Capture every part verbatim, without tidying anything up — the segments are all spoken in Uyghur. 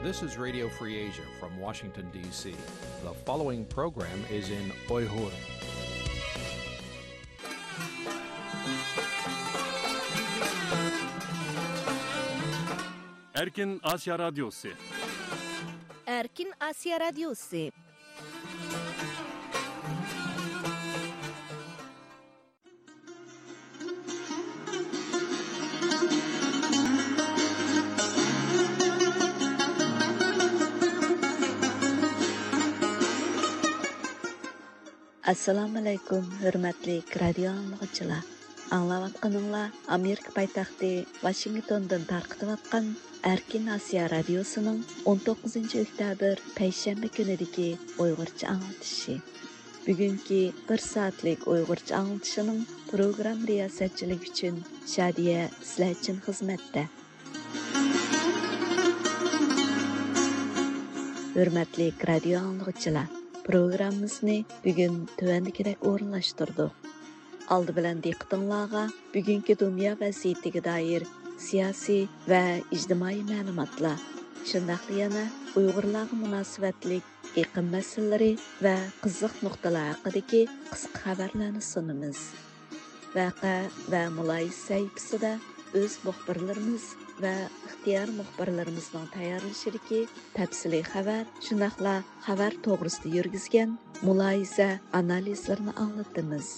This is Radio Free Asia from Washington, D C. The following program is in Uyghur. Erkin Asya Radyosu. Erkin Asya Radyosu. ئەسسالامۇئەلەيكۇم، ھۆرمەتلىك رادىيو ئاڭلىغۇچىلار. ئاڭلاۋاتقىنىڭلار ئامېرىكا پايتەختى ۋاشىنگتوندىن تارقىتىۋاتقان ئەركىن ئاسىيا رادىيوسىنىڭ ئون توققۇزىنچى ئۆكتەبىر پەيشەنبە كۈنىدىكى ئۇيغۇرچە ئاڭلىتىشى. بۈگۈنكى بىر سائەتلىك ئۇيغۇرچە ئاڭلىتىشىنىڭ پروگرامما رىياسەتچىلىكى ئۈچۈن شادىيە سىلەر ئۈچۈن خىزمەتتە. ھۆرمەتلىك رادىيو ئاڭلىغۇچىلار، پروگراممىمىزنى بۈگۈن تۆۋەندىكىدەك ئورۇنلاشتۇردۇق. ئالدى بىلەن دىققىتىڭلارغا بۈگۈنكى دۇنيا ۋەزىيىتىگە دائىر سىياسىي ۋە ئىجتىمائىي مەلۇماتلار، شۇنداقلا يەنە ئۇيغۇرلارغا مۇناسىۋەتلىك ئېقىم مەسىلىلىرى ۋە قىزىق نۇقتىلار ھەققىدىكى قىسقا خەۋەرلەرنى سۇنىمىز. ۋەقە ۋە مۇلاھىزە سەھىپىسىدە ئۆز مۇخبىرلىرىمىز ۋە ئىختىيارىي مۇخبىرلىرىمىزنىڭ تەييارلىشىدىكى تەپسىلىي خەۋەر، شۇنداقلا خەۋەر توغرىسىدا يۈرگۈزگەن مۇلاھىزە ئانالىزلىرىنى ئاڭلىتىمىز.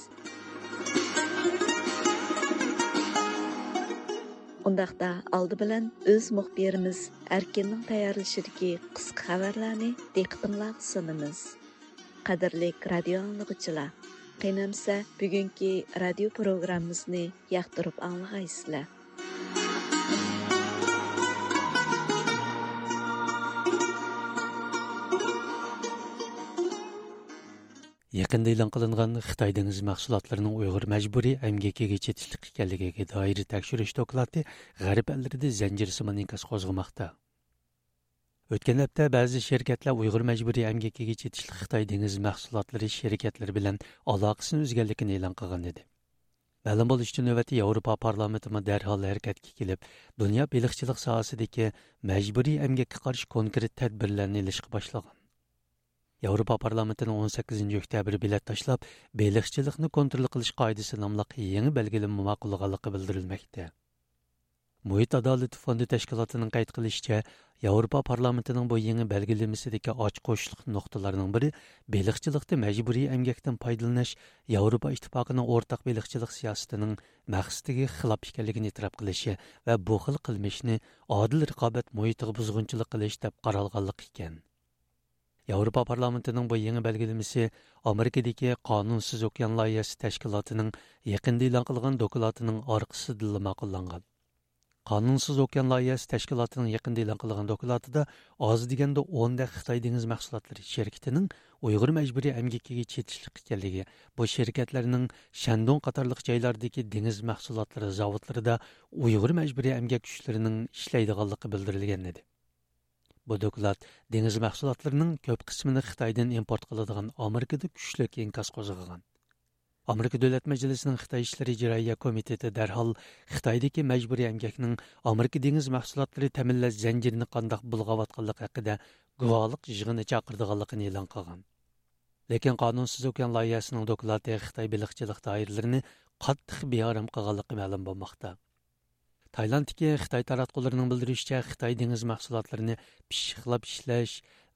ئۇنداقتا ئالدى بىلەن ئۆز مۇخبىرىمىز ئەركىننىڭ تەييارلىشىدىكى قىسقا خەۋەرلەرنى دىققىتىڭلارغا سۇنىمىز. قەدىرلىك رادىيو ئاڭلىغۇچىلار، قېنى ئەمسە بۈگۈنكى رادىيو پروگراممىمىزنى ياقتۇرۇپ ئاڭلىغايسىلەر. يېقىندا ئېلان قىلىنغان خىتاي دېڭىز مەھسۇلاتلىرىنىڭ ئۇيغۇر مەجبۇرىي ئەمگىكىگە چېتىشلىق ئىكەنلىكىگە دائىر تەكشۈرۈش دوكلاتى غەرب ئەللىرىدە زەنجىرسىمان ئىنكاس قوزغىماقتا. ئۆتكەن ھەپتە بەزى شىركەتلەر ئۇيغۇر مەجبۇرىي ئەمگىكىگە چېتىشلىق خىتاي دېڭىز مەھسۇلاتلىرى شىركەتلىرى بىلەن ئالاقىسىنى ئۈزگەنلىكىنى ئېلان قىلغان ئىدى. مەلۇم بولۇشىچە، نۆۋەتتە ياۋروپا پارلامېنتىمۇ دەرھال ھەرىكەتكە كېلىپ، دۇنيا بېلىقچىلىق ساھەسىدىكى مەجبۇرىي ئەمگەككە قارشى كونكرېت تەدبىرلەرنى ئېلىشقا باشلىغان. ياۋروپا پارلامېنتىنىڭ ئون سەككىزىنچى ئۆكتەبىر بېلەت تاشلاپ، بېلىقچىلىقنى كونترول قىلىش قائىدىسى ناملىق يېڭى بەلگىلىمە ماقۇللىغانلىقى بىلدۈرۈلمەكتە. مۇھىت ئادالىتى فوندى تەشكىلاتىنىڭ قەيت قىلىشىچە، ياۋروپا پارلامېنتىنىڭ بۇ يېڭى بەلگىلىمىسىدىكى ئاچقۇچلۇق نۇقتىلارنىڭ بىرى بېلىقچىلىقتا مەجبۇرىي ئەمگەكتىن پايدىلىنىش ياۋروپا ئىتتىپاقىنىڭ ئورتاق بېلىقچىلىق سىياسىتىنىڭ مەقسىتىگە خىلاپ ئىكەنلىكىنى ئېتىراپ قىلىشى ۋە بۇ خىل قىلمىشنى ئادىل رىقابەت مۇھىتىغا بۇزغۇنچىلىق قىلىش دەپ قارالغانلىقى ئىكەن. ياۋروپا پارلامېنتىنىڭ بۇ يېڭى بەلگىلىمىسى ئامېرىكىدىكى قانۇنسىز ئوكيان لايىھەسى تەشكىلاتىنىڭ يېقىندا ئېلان قىلغان دوكلاتىنىڭ ئارقىسىدىنلا ماقۇللانغان. قانۇنسىز ئوكيان لايىھەسى تەشكىلاتىنىڭ يېقىندا ئېلان قىلغان دوكلاتىدا ئاز دېگەندە ئون دەك خىتاي دېڭىز مەھسۇلاتلىرى شىركىتىنىڭ ئۇيغۇر مەجبۇرىي ئەمگىكىگە چېتىشلىق ئىكەنلىكى، بۇ شىركەتلەرنىڭ شەندۇڭ قاتارلىق جايلاردىكى دېڭىز مەھسۇلاتلىرى زاۋۇتلىرىدا ئۇيغۇر مەجبۇرىي ئەمگەك كۈچلىرىنىڭ ئىشلەيدىغانلىقى بىلدۈرۈلگەن ئىدى. بۇ دوكلات دېڭىز مەھسۇلاتلىرىنىڭ كۆپ قىسمىنى خىتايدىن ئىمپورت قىلىدىغان ئامېرىكىدا كۈچلۈك ئىنكاس قوزغىغان. ئامېرىكا دۆلەت مەجلىسىنىڭ خىتاي ئىشلىرى ئىجرائىيە كومىتېتى دەرھال خىتايدىكى مەجبۇرىي ئەمگەكنىڭ ئامېرىكا دېڭىز مەھسۇلاتلىرى تەمىنلەش زەنجىرىنى قانداق بۇلغاۋاتقانلىقى ھەققىدە گۇۋاھلىق يىغىنى چاقىرىدىغانلىقىنى ئېلان قىلغان. لېكىن قانۇنسىز ئوكيان لايىھەسىنىڭ دوكلاتى خىتاي بېلىقچىلىق دائىرىلىرىنى قاتتىق بىئارام قىلغانلىقى مەلۇم بولماقتا. تايلاندتىكى خىتاي تاراتقۇلىرىنىڭ بىلدۈرۈشىچە، خىتاي دېڭىز مەھسۇلاتلىرىنى پىششىقلاپ ئىشلەش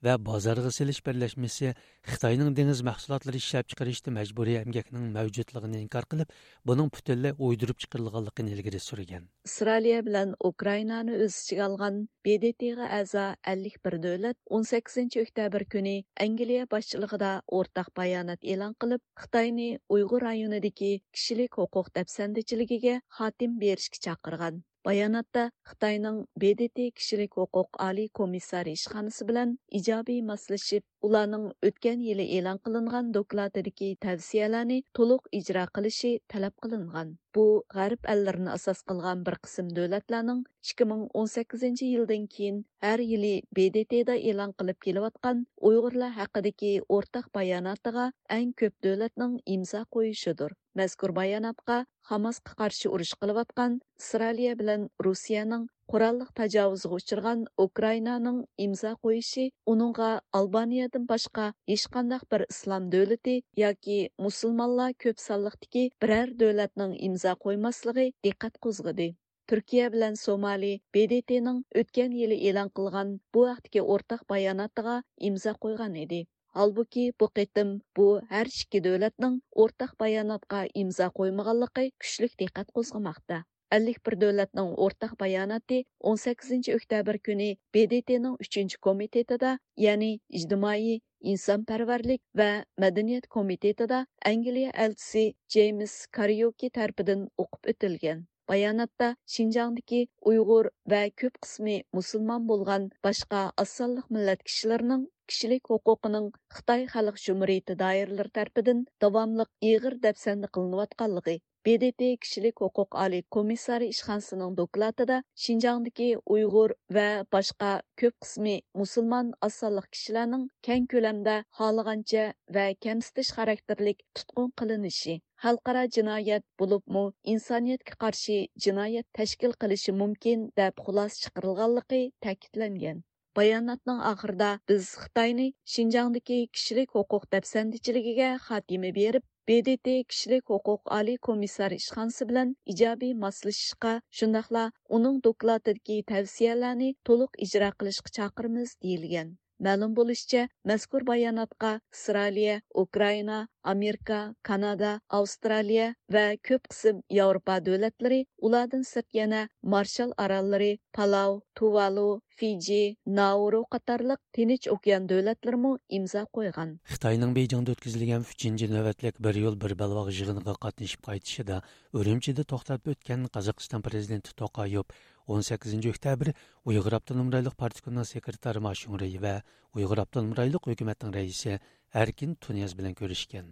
ۋە بازارغا سېلىش بىرلەشمىسى خىتاينىڭ دېڭىز مەھسۇلاتلىرى ئىشلەپچىقىرىشتا مەجبۇرىي ئەمگەكنىڭ مەۋجۇتلۇقىنى ئىنكار قىلىپ، بۇنىڭ پۈتۈنلەي ئويدۇرۇپ چىقىرىلغانلىقىنى ئىلگىرى سۈرگەن. ئىسرائىلىيە بىلەن ئۇكرائىنانى ئۆز ئىچىگە ئالغان ب د ت غا ئەزا ئەللىك بىر دۆلەت ئون سەككىزىنچى ئۆكتەبىر كۈنى ئەنگلىيە باشچىلىقىدا ئورتاق بايانات ئېلان قىلىپ، خىتاينى ئۇيغۇر رايونىدىكى كىشىلىك ھوقۇق دەپسەندىچىلىكىگە خاتىمە بېرىشكە چاقىرغان. باياناتتا خىتاينىڭ ب د ت كىشىلىك ھوقۇق ئالىي كومىسسارى ئىشخانىسى بىلەن ئىجابىي ماسلىشىپ، ئۇلارنىڭ ئۆتكەن يىلى ئېلان قىلىنغان دوكلاتىدىكى تەۋسىيەلەرنى تولۇق ئىجرا قىلىشى تەلەپ قىلىنغان. بۇ غەرب ئەللىرىنى ئاساس قىلغان بىر قىسىم دۆلەتلەرنىڭ ئىككى مىڭ ئون سەككىزىنچى يىلدىن كېيىن ھەر يىلى ب د ت دا ئېلان قىلىپ كېلىۋاتقان ئۇيغۇرلار ھەققىدىكى ئورتاق باياناتىغا ئەڭ كۆپ دۆلەتنىڭ ئىمزا قويۇشىدۇر. مەزكۇر باياناتقا خاماسقا قارشى ئۇرۇش قىلىۋاتقان ئىسرائىلىيە بىلەن روسىيەنىڭ قوراللىق تاجاۋۇزغا ئۇچرىغان ئۇكرائىنانىڭ ئىمزا قويۇشى ئۇنىڭغا ئالبانىيەدىن باشقا ھېچقانداق بىر ئىسلام دۆلىتى ياكى مۇسۇلمانلار كۆپ سانلىقتىكى بىرەر دۆلەتنىڭ ئىمزا قويماسلىقى دىققەت قوزغىدى. تۈركىيە بىلەن سومالى ب د ت نىڭ ئۆتكەن يىلى ئېلان قىلغان بۇ ھەقتىكى ئورتاق باياناتىغا ئىمزا قويغان ئىدى. ھالبۇكى، بۇ قېتىم بۇ ھەر ئىككى دۆلەتنىڭ ئورتاق باياناتقا ئىمزا قويمىغانلىقى كۈچلۈك دىققەت قوزغىماقتا. ئەللىك بىر دۆلەتنىڭ ئورتاق باياناتى ئون سەككىزىنچى ئۆكتەبىر كۈنى ب د ت نىڭ ئۈچىنچى كومىتېتىدا، يەنى ئىجتىمائىي، ئىنسانپەرۋەرلىك ۋە مەدەنىيەت كومىتېتىدا ئەنگلىيە ئەلچىسى جېيمس كاريوكى تەرىپىدىن ئوقۇپ ئۆتۈلگەن. باياناتتا شىنجاڭدىكى ئۇيغۇر ۋە كۆپ قىسمى مۇسۇلمان بولغان باشقا ئاز سانلىق مىللەت كىشىلىرىنىڭ كىشىلىك ھوقۇقىنىڭ خىتاي خەلق جۇمھۇرىيىتى دائىرىلىرى تەرىپىدىن داۋاملىق ئېغىر دەپسەندە قىلىنىۋاتقانلىقى، ب د ت كىشىلىك ھوقۇق ئالىي كومىسسارى ئىشخانىسىنىڭ دوكلاتىدا شىنجاڭدىكى ئۇيغۇر ۋە باشقا كۆپ قىسمى مۇسۇلمان ئاز سانلىق كىشىلەرنىڭ كەڭ كۆلەمدە خالىغانچە ۋە كەمسىتىش خاراكتېرلىك تۇتقۇن قىلىنىشى، خەلقئارا جىنايەت، بولۇپمۇ ئىنسانىيەتكە قارشى جىنايەت تەشكىل قىلىشى مۇمكىن، دەپ خۇلاسە چىقىرىلغانلىقى تەكىتلەنگەن. باياناتنىڭ ئاخىرىدا بىز خىتاينى شىنجاڭدىكى كىشىلىك ھوقۇق دەپسەندىچىلىكىگە خاتىمە بېرىپ، ب د ت كىشىلىك ھوقۇق ئالىي كومىسسارى ئىشخانىسى بىلەن ئىجابىي ماسلىشىشقا، شۇنداقلا ئۇنىڭ دوكلاتىدىكى تەۋسىيەلەرنى تولۇق ئىجرا قىلىشقا چاقىرىمىز، دېيىلگەن. مەلۇم بولۇشىچە، مەزكۇر باياناتقا ئىسرائىلىيە، ئۇكرائىنا، ئامېرىكا، كانادا، ئاۋسترالىيە ۋە كۆپ قىسىم ياۋروپا دۆلەتلىرى، ئۇلاردىن سىرت يەنە مارشال ئاراللىرى، پالاۋ، تۇۋالۇ، فىجى، نائۇرۇ قاتارلىق تىنچ ئوكيان دۆلەتلىرىمۇ ئىمزا قويغان. خىتاينىڭ بېيجىڭدا ئۆتكۈزۈلگەن ئۈچىنچى نۆۋەتلىك بىر يول، بىر بەلباغ يىغىنىغا قاتنىشىپ قايتىشىدا ئۈرۈمچىدە توختاپ ئۆتكەن قازاقىستان پرېزىدېنتى توقايېۋ ئون سەككىزىنچى ئۆكتەبىر ئۇيغۇر ئاپتونوم رايونلۇق پارتكومنىڭ سېكرېتارى ما شۇڭرېي ۋە ئۇيغۇر ئاپتونوم رايونلۇق ھۆكۈمەتنىڭ رەئىسى ئەركىن تۇنىياز بىلەن كۆرۈشكەن.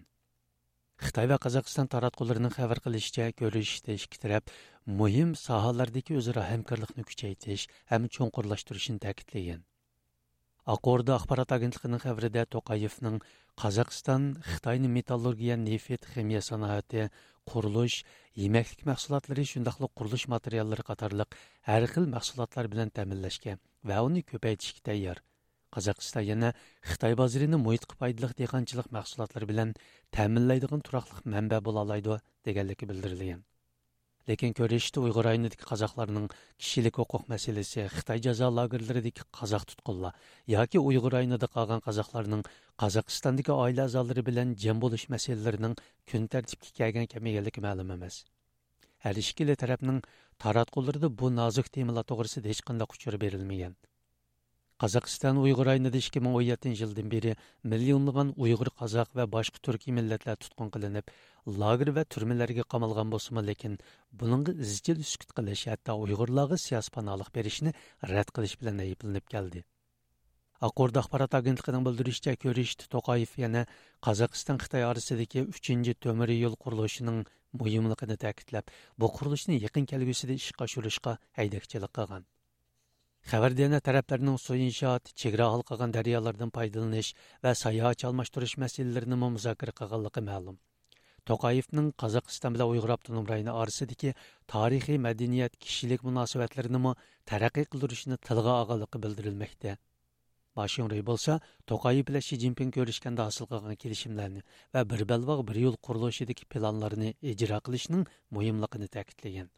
خىتاي ۋە قازاقىستان تاراتقۇلىرىنىڭ خەۋەر قىلىشىچە، كۆرۈشۈشتە ئىككى تەرەپ مۇھىم ساھەلەردىكى ئۆزئارا ھەمكارلىقنى كۈچەيتىش ھەم چوڭقۇرلاشتۇرۇشنى تەكىتلىگەن. ئاق ئوردا ئاخبارات ئاگېنتلىقىنىڭ خەۋىرىدە توقايېۋنىڭ قازاقىستان خىتاينى مېتاللورگىيە، نېفىت، خىمىيە سانائىتى، قۇرۇلۇش، يېمەكلىك مەھسۇلاتلىرى، شۇنداقلا قۇرۇلۇش ماتېرىياللىرى قاتارلىق ھەر خىل مەھسۇلاتلار بىلەن تەمىنلەشكە ۋە ئۇنى كۆپەيتىشكە تەييار. قازاقىستان يەنە خىتاي بازىرىنى مۇھىتقا پايدىلىق دېھقانچىلىق مەھسۇلاتلىرى بىلەن تەمىنلەيدىغان تۇراقلىق مەنبە بولالايدۇ، دېگەنلىكى بىلدۈرۈلگەن. لېكىن كۆرۈشۈشتە ئۇيغۇر رايونىدىكى قازاقلارنىڭ كىشىلىك ھوقۇق مەسىلىسى، خىتاي جازا لاگېرلىرىدىكى قازاق تۇتقۇنلار ياكى ئۇيغۇر رايونىدا قالغان قازاقلارنىڭ قازاقىستاندىكى ئائىلە ئەزالىرى بىلەن جەم بولۇش مەسىلىلىرىنىڭ كۈن تەرتىپكە كەلگەن كەم ئىكەنلىكى مەلۇم ئەمەس. ھەر ئىككىلا تەرەپنىڭ تاراتقۇلىرىدا بۇ نازۇك تېمىلار توغرىسىدا ھېچقانداق ئۇچۇر بېرىلمىگەن. قازاقىستان ئۇيغۇر رايونىدا ئىككى مىڭ ئون يەتتىنچى يىلدىن بېرى مىليونلىغان ئۇيغۇر، قازاق ۋە باشقا تۈركىي مىللەتلەر تۇتقۇن قىلىنىپ، لاگېر ۋە تۈرمىلەرگە قامالغان بولسىمۇ، لېكىن بۇنىڭغا ئىزچىل سۈكۈت قىلىش، ھەتتا ئۇيغۇرلارغا سىياسىي پاناھلىق بېرىشنى رەت قىلىش بىلەن ئەيىبلىنىپ كەلدى. ئاق ئوردا ئاخبارات ئاگېنتلىقىنىڭ بىلدۈرۈشىچە، كۆرۈشۈشتە توقايېف يەنە قازاقىستان خىتاي ئارىسىدىكى ئۈچىنچى تۆمۈر يول قۇرۇلۇشىنىڭ مۇھىملىقىنى تەكىتلەپ، بۇ قۇرۇلۇشنى يېقىن كەلگۈسىدە ئىشقا ئاشۇرۇشقا ھەيدەكچىلىك قىلغان. خەۋەردە يەنە تەرەپلەرنىڭ سۇ ئىنشائات، چېگرا ھالقىغان دەريالىرىدىن پايدىلىنىش ۋە ساياھەتچى ئالماشتۇرۇش مەسىلىلىرىنىمۇ مۇزاكىرە قىلغانلىقى مەلۇم. توقايېۋنىڭ قازاقىستان بىلەن ئۇيغۇر ئاپتونوم رايونى ئارىسىدىكى تارىخىي، مەدەنىيەت، كىشىلىك مۇناسىۋەتلىرىنىمۇ تەرەققىي قىلدۇرۇشنى تىلغا ئالغانلىقى بىلدۈرۈلمەكتە. ما شۇڭرېي بولسا توقايېف بىلەن شى جىنپىڭ كۆرۈشكەندە ھاسىل قىلغان كېلىشىملەرنى ۋە بىر بەلباغ، بىر يول قۇرۇلۇشىدىكى پىلانلارنى ئىجرا قىلىشنىڭ مۇھىملىقىنى تەكىتلىگەن.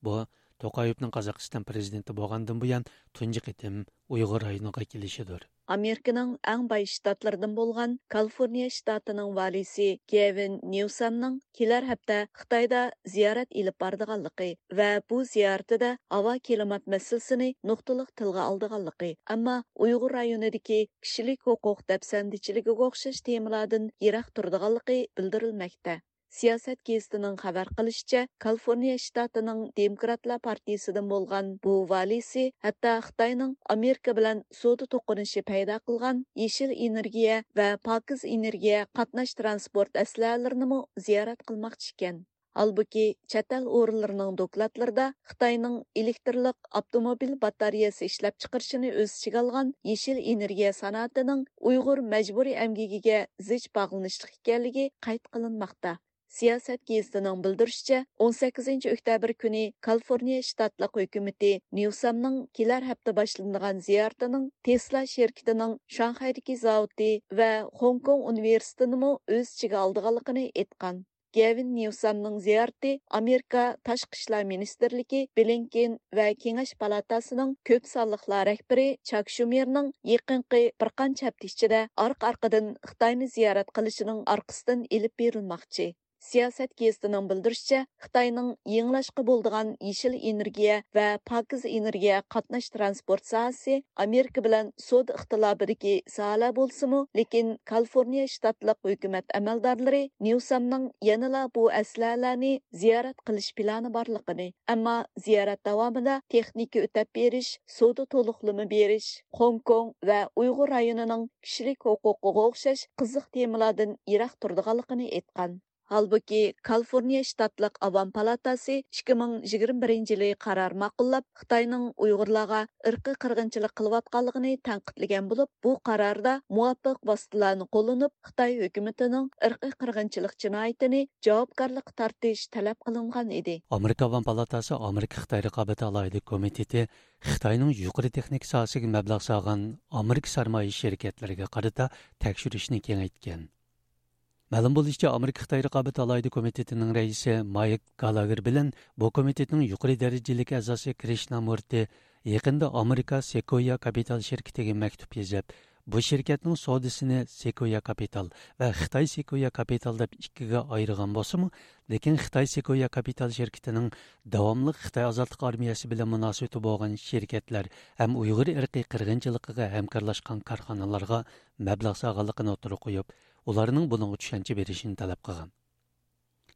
بۇ توقايېۋنىڭ قازاقىستان پرېزىدېنتى بولغاندىن بۇيان تۇنجى قېتىم ئۇيغۇر رايونىغا كېلىشىدۇر. ئامېرىكىنىڭ ئەڭ باي شتاتلىرىدىن بولغان كالىفورنىيە شتاتىنىڭ ۋالىيسى گېۋىن نيۇسامنىڭ كېلەر ھەپتە خىتايدا زىيارەت ئېلىپ بارىدىغانلىقى ۋە بۇ زىيارىتىدە ھاۋا كىلىمات مەسىلىسىنى نۇقتىلىق تىلغا ئالىدىغانلىقى، ئەمما ئۇيغۇر رايونىدىكى كىشىلىك ھوقۇق دەپسەندىچىلىكىگە ئوخشاش تېمىلاردىن يىراق تۇرىدىغانلىقى بىلدۈرۈلمەكتە. سىياسەت گېزىتىنىڭ خەۋەر قىلىشىچە، كالىفورنىيە شتاتىنىڭ دېموكراتلار پارتىيىسىدىن بولغان بۇ ۋالىيسى ھەتتا خىتاينىڭ ئامېرىكا بىلەن سودا توقۇنۇشى پەيدا قىلغان يېشىل ئېنېرگىيە ۋە پاكىز ئېنېرگىيە قاتناش تىرانسپورت ئەسلىھەلىرىنىمۇ زىيارەت قىلماقچى ئىكەن. ھالبۇكى، چەت ئەل ئورۇنلىرىنىڭ دوكلاتلىرىدا خىتاينىڭ ئېلېكترلىق ئاپتوموبىل باتارېيەسى ئىشلەپچىقىرىشىنى ئۆز ئىچىگە ئالغان يېشىل ئېنېرگىيە سانائىتىنىڭ ئۇيغۇر مەجبۇرىي ئەمگىكىگە زىچ باغلىنىشلىق ئىكەنلىكى قەيت قىلىنماقتا. سىياسەت گېزىتىنىڭ بىلدۈرۈشىچە، ئون سەككىزىنچى ئۆكتەبىر كۈنى كالىفورنىيە شتاتلىق ھۆكۈمىتى نيۇسامنىڭ كېلەر ھەپتە باشلىنىدىغان زىيارىتىنىڭ تېسلا شىركىتىنىڭ شاڭخەيدىكى زاۋۇتى ۋە خوڭكوڭ ئۇنىۋېرسىتېتىنىمۇ ئۆز ئىچىگە ئالىدىغانلىقىنى ئېيتقان. گەۋىن نيۇسامنىڭ زىيارىتى ئامېرىكا تاشقى ئىشلار مىنىستىرلىكى بلىنكېن ۋە كېڭەش پالاتاسىنىڭ كۆپ سانلىقلار رەھبىرى چاك شۇمېرنىڭ يېقىنقى بىر قانچە ھەپتە ئىچىدە ئارقا-ئارقىدىن خىتاينى زىيارەت قىلىشىنىڭ ئارقىسىدىن ئېلىپ بېرىلماقچى. سىياسەت گېزىتىنىڭ بىلدۈرۈشىچە، خىتاينىڭ يېڭىلاشقا بولىدىغان يېشىل ئېنېرگىيە ۋە پاكىز ئېنېرگىيە قاتناش تىرانسپورت ساھەسى ئامېرىكا بىلەن سودا ئىختىلاپىدىكى ساھەلەر بولسىمۇ، لېكىن كالىفورنىيە شتاتلىق ھۆكۈمەت ئەمەلدارلىرى نيۇسامنىڭ يەنىلا بۇ ئەسلىھەلەرنى زىيارەت قىلىش پىلانى بارلىقىنى، ئەمما زىيارەت داۋامىدا تېخنىكا ئۆتەپ بېرىش، سودا تولۇقلىما بېرىش، خوڭكوڭ ۋە ئۇيغۇر رايونىنىڭ كىشىلىك ھوقۇقىغا ئوخشاش قىزىق تېمىلاردىن يىراق تۇرىدىغانلىقىنى ئېيتقان. ھالبۇكى، كالىفورنىيە شتاتلىق ئاۋام پالاتاسى ئىككى مىڭ يىگىرمە بىرىنچى يىلى قارار ماقۇللاپ، خىتاينىڭ ئۇيغۇرلارغا ئىرقىي قىرغىنچىلىق قىلىۋاتقانلىقىنى تەنقىدلىگەن بولۇپ، بۇ قاراردا مۇۋاپىق ۋاسىتىلەرنى قوللىنىپ، خىتاي ھۆكۈمىتىنىڭ ئىرقىي قىرغىنچىلىق جىنايىتىنى جاۋابكارلىققا تارتىش تەلەپ قىلىنغان ئىدى. ئامېرىكا ئاۋام پالاتاسى ئامېرىكا خىتاي رىقابەت ئالاھىدە كومىتېتى خىتاينىڭ يۇقىرى تېخنىكا ساھەسىگە مەبلەغ سالغان ئامېرىكا سەرمايە شىركەتلىرىگە قارىتا تەكشۈرۈشنى كېڭەيتكەن. مەلۇم بولۇشىچە، ئامېرىكا خىتاي رىقابەت ئالاھىدە كومىتېتىنىڭ رەئىسى مايك گالاگېر بىلەن بۇ كومىتېتنىڭ يۇقىرى دەرىجىلىك ئەزاسى كرىشنامۇرتى يېقىندا ئامېرىكا سېكويا كاپىتال شىركىتىگە مەكتۇپ يېزىپ، بۇ شىركەتنىڭ سودىسىنى سېكويا كاپىتال ۋە خىتاي سېكويا كاپىتال دەپ ئىككىگە ئايرىغان بولسىمۇ، لېكىن خىتاي سېكويا كاپىتال شىركىتىنىڭ داۋاملىق خىتاي ئازادلىق ئارمىيەسى بىلەن مۇناسىۋىتى بولغان شىركەتلەر ھەم ئۇيغۇر ئىرقىي قىرغىنچىلىقىغا ھەمكارلاشقان كارخانىلارغا مەبلەغ سالغانلىقىنى ئوتتۇرىغا قويۇپ، ئۇلارنىڭ بۇنىڭغا چۈشەنچە بېرىشىنى تەلەپ قىلغان.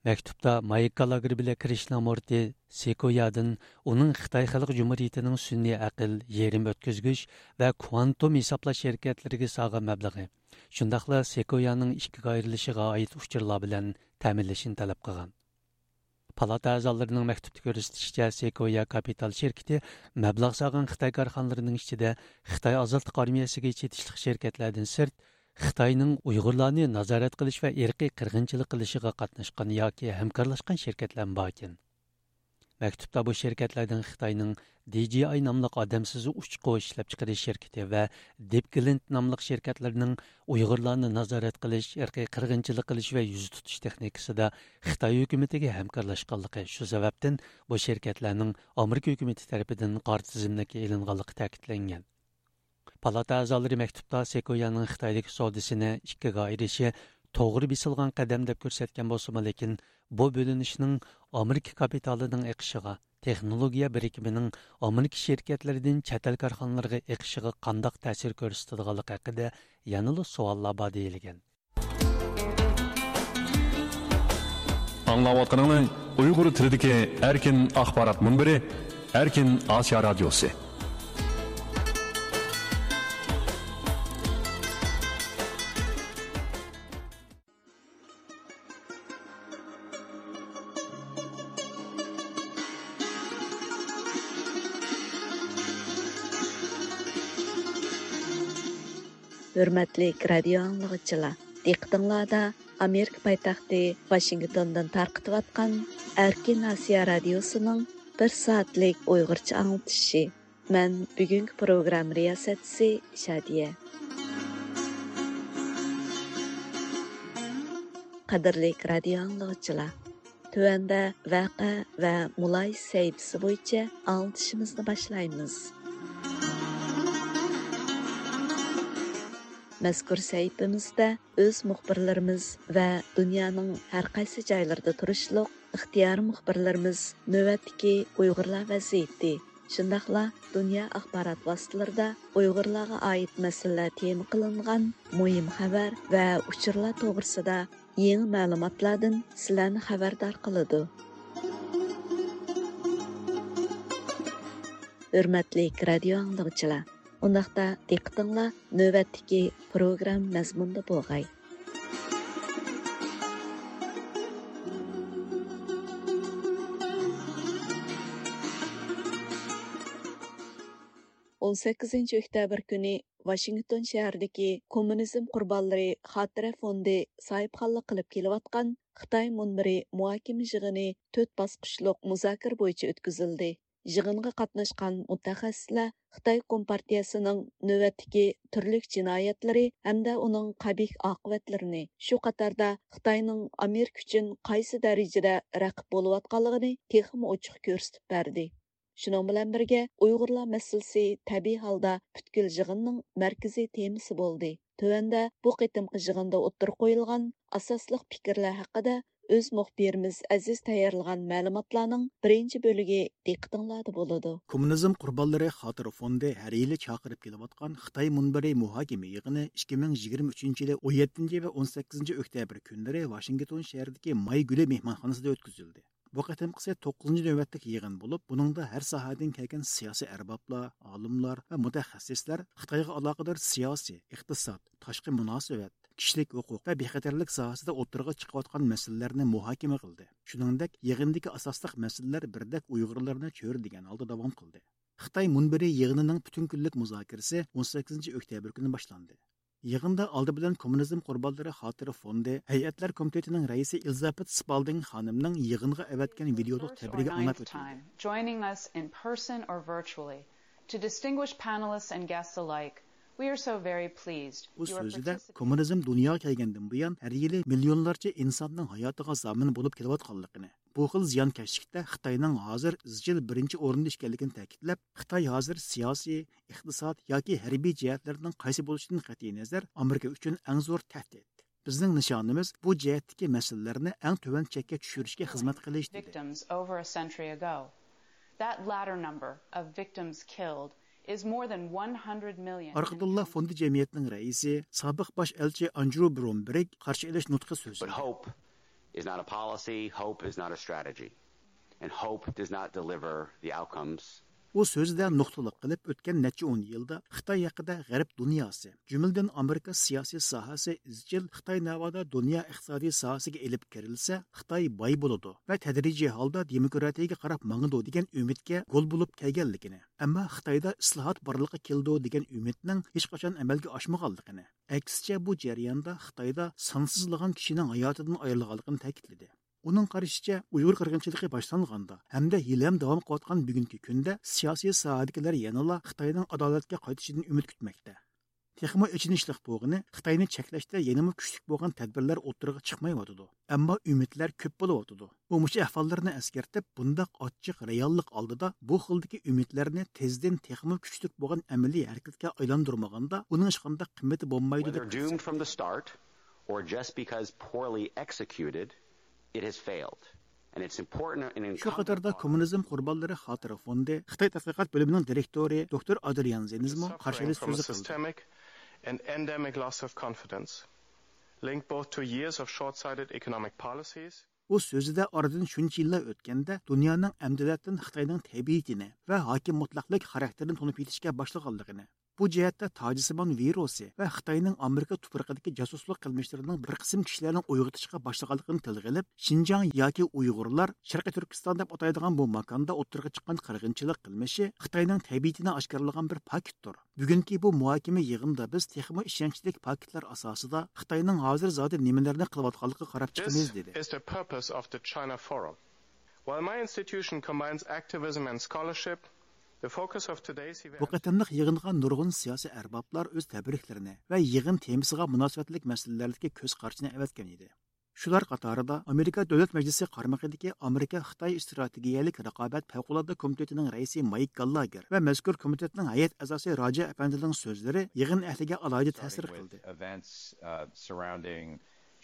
مەكتۇپتا مايك گالاگېر بىلەن كرىشنامۇرتى سېكويادىن ئۇنىڭ خىتاي خەلق جۇمھۇرىيىتىنىڭ سۈنئىي ئەقىل، يېرىم ئۆتكۈزگۈچ ۋە كۋانتوم ھېسابلاش شىركەتلىرىگە سالغان مەبلىغى، شۇنداقلا سېكويانىڭ ئىككىگە ئايرىلىشىغا ئائىت ئۇچۇرلار بىلەن تەمىنلىشىنى تەلەپ قىلغان. پالاتا ئەزالىرىنىڭ مەكتۇپتا كۆرسىتىشىچە، سېكويا كاپىتال شىركىتى مەبلەغ سالغان خىتاي كارخانىلىرىنىڭ ئىچىدە خىتاي ئازادلىق ئارمىيەسىگە چېتىشلىق شىركەتلەردىن سىرت، خىتاينىڭ ئۇيغۇرلارنى نازارەت قىلىش ۋە ئىرقىي قىرغىنچىلىق قىلىشىغا قاتناشقان ياكى ھەمكارلاشقان شىركەتلەرمۇ باركەن. مەكتۇپتا بۇ شىركەتلەردىن خىتاينىڭ دى جى ئاي ناملىق ئادەمسىز ئۇچقۇچ ئىشلەپچىقىرىش شىركىتى ۋە دىپگلىنت ناملىق شىركەتلىرىنىڭ ئۇيغۇرلارنى نازارەت قىلىش، ئىرقىي قىرغىنچىلىق قىلىش ۋە يۈزە تۇتۇش تېخنىكىسىدا خىتاي ھۆكۈمىتىگە ھەمكارلاشقانلىقى، شۇ سەۋەبتىن بۇ شىركەتلەرنىڭ ئامېرىكا ھۆكۈمىتى تەرىپىدىن قارا تىزىملىككە ئېلىنغانلىقى تەكىتلەنگەن. پالاتا ئەزالىرى مەكتۇپتا سېكويانىڭ خىتايدىكى سودىسىنى ئىككىگە ئايرىشى توغرا بېسىلغان قەدەم دەپ كۆرسەتكەن بولسىمۇ، لېكىن بۇ بۆلۈنۈشنىڭ ئامېرىكا كاپىتالىنىڭ ئېقىشىغا، تېخنولوگىيە بىرىكمىنىڭ ئامېرىكا شىركەتلىرىدىن چەت ئەل كارخانىلىرىغا ئېقىشىغا قانداق تەسىر كۆرسىتىدىغانلىقى ھەققىدە يەنىلا سوئاللار بار دېيىلگەن. ئاڭلاۋاتقىنىڭلار ئۇيغۇر تىلىدىكى ئەركىن ئاخبارات مۇنبىرى، ئەركىن ئاسىيا رادىيوسى. ھۆرمەتلىك رادىيو ئاڭلىغۇچىلار، دىققىتىڭلاردا ئامېرىكا پايتەختى ۋاشىنگتوندىن تارقىتىۋاتقان ئەركىن ئاسىيا رادىيوسىنىڭ بىر سائەتلىك ئۇيغۇرچە ئاڭلىتىشى. مەن بۈگۈنكى پروگرامما رىياسەتچىسى شادىيە. قەدىرلىك رادىيو ئاڭلىغۇچىلار، تۆۋەندە ۋەقە ۋە مۇلاھىزە سەھىپىسى بويىچە ئاڭلىتىشىمىزنى باشلايمىز. مەزكۇر سەھىپىمىزدە ئۆز مۇخبىرلىرىمىز ۋە دۇنيانىڭ ھەر قايسى جايلىرىدا تۇرۇشلۇق ئىختىيارىي مۇخبىرلىرىمىز نۆۋەتتىكى ئۇيغۇرلار ۋەزىيىتى، شۇنداقلا دۇنيا ئاخبارات ۋاسىتىلىرىدا ئۇيغۇرلارغا ئائىت مەسىلىلەر تېما قىلىنغان مۇھىم خەۋەر ۋە ئۇچۇرلار توغرىسىدا يېڭى مەلۇماتلاردىن سىلەرنى خەۋەردار قىلىدۇ. ھۆرمەتلىك رادىيو ئاڭلىغۇچىلار، ئۇنداقتا دىققىتىڭلار نۆۋەتتىكى پروگرامما مەزمۇنىدا بولغاي. ئون سەككىزىنچى ئۆكتەبىر كۈنى ۋاشىنگتون شەھىرىدىكى كوممۇنىزم قۇربانلىرى خاتىرە فوندى ساھىبخانلىق قىلىپ كېلىۋاتقان خىتاي مۇنبىرى مۇھاكىمە يىغىنى تۆت باسقۇچلۇق مۇزاكىرە بويىچە ئۆتكۈزۈلدى. يىغىنغا قاتناشقان مۇتەخەسسىسلەر خىتاي كومپارتىيەسىنىڭ نۆۋەتتىكى تۈرلۈك جىنايەتلىرى ھەمدە ئۇنىڭ قەبىھ ئاقىۋەتلىرىنى، شۇ قاتاردا خىتاينىڭ ئامېرىكا ئۈچۈن قايسى دەرىجىدە رەقىب بولۇۋاتقانلىقىنى تېخىمۇ ئوچۇق كۆرسىتىپ بەردى. شۇنىڭ بىلەن بىرگە، ئۇيغۇرلار مەسىلىسى تەبىئىي ھالدا پۈتكۈل يىغىننىڭ مەركىزىي تېمىسى بولدى. تۆۋەندە بۇ قېتىمقى يىغىندا ئوتتۇرىغا قويۇلغان ئاساسلىق پىكىرلەر ھەققىدە ئۆز مۇخبىرىمىز ئەزىز تەييارلىغان مەلۇماتلارنىڭ بىرىنچى بۆلىكى دىققىتىڭلاردا بولىدۇ. كوممۇنىزم قۇربانلىرى خاتىرە فوندى ھەر يىلى چاقىرىپ كېلىۋاتقان خىتاي مۇنبىرى مۇھاكىمە يىغىنى ئىككى مىڭ يىگىرمە ئۈچىنچى يىلى ئون يەتتىنچى ۋە ئون سەككىزىنچى ئۆكتەبىر كۈنلىرى ۋاشىنگتون شەھىرىدىكى ماي گۈلى مېھمانخانىسىدا ئۆتكۈزۈلدى. بۇ قېتىمقىسى توققۇزىنچى نۆۋەتلىك يىغىن بولۇپ، بۇنىڭدا ھەر ساھەدىن كەلگەن سىياسىي ئەربابلار، ئالىملار ۋە مۇتەخەسسىسلەر خىتايغا ئالاقىدار سىياسىي، ئىقتىساد، تاشقى مۇناسىۋەت، كىشىلىك ھوقۇق ۋە بىخەتەرلىك ساھەسىدە ئوتتۇرىغا چىقىۋاتقان مەسىلىلەرنى مۇھاكىمە قىلدى. شۇنىڭدەك، يىغىندىكى ئاساسلىق مەسىلىلەر بىردەك ئۇيغۇرلارنى چۆرىدىگەن ھالدا داۋام قىلدى. خىتاي مۇنبىرى يىغىنىنىڭ پۈتۈن كۈنلۈك مۇزاكىرىسى ئون سەككىزىنچى ئۆكتەبىر كۈنى باشلاندى. يىغىندا ئالدى بىلەن كوممۇنىزم قۇربانلىرى خاتىرە فوندى، ھەيئەتلەر كومىتېتىنىڭ رەئىسى ئېلىزابېت سپالدىڭ خانىمنىڭ يىغىنغا ئەۋەتكەن ۋىدېولۇق تەبرىكى ئاڭلاپ ئۆتۈلدى. Joining us in person or virtually, to distinguished panelists and guests alike, we are so very pleased. ئۇ سۆزىدە كوممۇنىزم دۇنياغا كەلگەندىن بۇيان ھەر يىلى مىليونلارچە ئىنساننىڭ ھاياتىغا زامىن بولۇپ كېلىۋاتقانلىقىنى، بۇ خىل زىيانكەشلىكتە خىتاينىڭ ھازىر ئىزچىل بىرىنچى ئورۇندا ئىكەنلىكىنى تەكىتلەپ، خىتاي ھازىر سىياسىي، ئىقتىساد ياكى ھەربىي جەھەتلەرنىڭ قايسى بولۇشىدىن قەتئىينەزەر، ئامېرىكا ئۈچۈن ئەڭ زور تەھدىت. بىزنىڭ نىشانىمىز بۇ جەھەتتىكى مەسىلىلەرنى ئەڭ تۆۋەن چەككە چۈشۈرۈشكە خىزمەت قىلىش، دېدى. Victims over a century ago. That latter number of victims killed is more than one hundred million. ئارقىدىنلا فوندى جەمئىيەتنىڭ رەئىسى، سابىق باش ئەلچى ئاندرو برونبېرگ قارشى ئېلىش نۇتقى سۆزلىدى. But hope is not a policy, hope is not a strategy. And hope does not deliver the outcomes. ئۇ سۆزىدە نۇقتىلىق قىلىپ، ئۆتكەن نەچچە ئون يىلدا خىتاي ھەققىدە غەرب دۇنياسى، جۈملىدىن ئامېرىكا سىياسىي ساھەسى ئىزچىل خىتاي ناۋادا دۇنيا ئىقتىسادىي ساھەسىگە ئېلىپ كىرىلسە، خىتاي باي بولىدۇ ۋە تەدرىجىي ھالدا دېموكراتىيەگە قاراپ ماڭىدۇ دېگەن ئۈمىدكە گول بولۇپ كەلگەنلىكىنى، ئەمما خىتايدا ئىسلاھات بارلىققا كېلىدۇ دېگەن ئۈمىدنىڭ ھېچقاچان ئەمەلگە ئاشمىغانلىقىنى، ئەكسىچە، بۇ جەرياندا خىتايدا سانسىزلىغان كىشىنىڭ ھاياتىدىن ئايرىلغانلىقىنى تەكىتلىدى. ئۇنىڭ قارىشىچە، ئۇيغۇر قىرغىنچىلىقى باشلانغاندا ھەمدە ھېلىھەم داۋام قىلىۋاتقان بۈگۈنكى كۈندە سىياسىي ساھەدىكىلەر يەنىلا خىتاينىڭ ئادالەتكە قايتىشىدىن ئۈمىد كۈتمەكتە. تېخىمۇ ئېچىنىشلىق بولغىنى، خىتاينى چەكلەشتە يەنىمۇ كۈچلۈك بولغان تەدبىرلەر ئوتتۇرىغا چىقمايۋاتىدۇ. ئەمما ئۈمىدلەر كۆپ بولۇۋاتىدۇ. ئۇ مۇشۇ ئەھۋاللارنى ئەسكەرتىپ، بۇنداق ئاچچىق رېئاللىق ئالدىدا بۇ خىلدىكى ئۈمىدلەرنى تېزدىن تېخىمۇ كۈچلۈك بولغان ئەمەلىي ھەرىكەتكە ئايلاندۇرمىغاندا، ئۇنىڭ ھېچقانداق قىممىتى بولمايدۇ، دەپ كۆرسەتتى. Or just because poorly executed, it has failed. And it's important and شۇ قاتاردا كوممۇنىزم قۇربانلىرى خاتىرە فوندى خىتاي تەتقىقات بۆلۈمىنىڭ دىرېكتورى دوكتور ئادرىيان زېنزمۇ قارشى ئېلىش سۆزى قىلدى. Systemic and endemic loss of confidence, linked both to years of short-sighted economic policies. ئۇ سۆزىدە ئارىدىن شۇنچە يىللار ئۆتكەندە، دۇنيانىڭ ئەمدىلەتتىن خىتاينىڭ تەبىئىتىنى ۋە ھاكىم مۇتلەقلىك خاراكتېرىنى تونۇپ يېتىشكە باشلىغانلىقىنى، بۇ جەھەتتە تاجسىمان ۋىرۇسى ۋە خىتاينىڭ ئامېرىكا تۇپرىقىدىكى جاسۇسلۇق قىلمىشلىرىنىڭ بىر قىسىم كىشىلەرنىڭ ئويغىتىشقا باشلىغانلىقىنى تىلغا ئېلىپ، شىنجاڭ ياكى ئۇيغۇرلار شەرقىي تۈركىستان دەپ ئاتايدىغان بۇ ماكاندا ئوتتۇرىغا چىققان قىرغىنچىلىق قىلمىشى خىتاينىڭ تەبىئىتىنى ئاشكارىلىغان بىر پاكىتتۇر. بۈگۈنكى بۇ مۇھاكىمە يىغىنىدا بىز تېخىمۇ ئىشەنچلىك پاكىتلار ئاساسىدا خىتاينىڭ ھازىر زادى نېمىلەرنى قىلىۋاتقانلىقىغا قاراپ چىقىمىز، دېدى. Is the purpose of the China Forum. While my institution combines activism and scholarship, the focus of today's event بۇ قېتىملىق يىغىنغا نۇرغۇن سىياسىي ئەربابلار ئۆز تەبرىكلىرىنى ۋە يىغىن تېمىسىغا مۇناسىۋەتلىك مەسىلىلەردىكى كۆز قارىشىنى ئەۋەتكەن ئىدى. شۇلار قاتارىدا ئامېرىكا دۆلەت مەجلىسى قارمىقىدىكى ئامېرىكا خىتاي ئىستراتېگىيەلىك رىقابەت پەۋقۇلئاددە كومىتېتىنىڭ رەئىسى مايك گاللاگېر ۋە مەزكۇر كومىتېتنىڭ ھەيئەت ئەزاسى راجا ئەپەندىنىڭ سۆزلىرى يىغىن ئەھلىگە ئالاھىدە تەسىر قىلدى. Events, uh, surrounding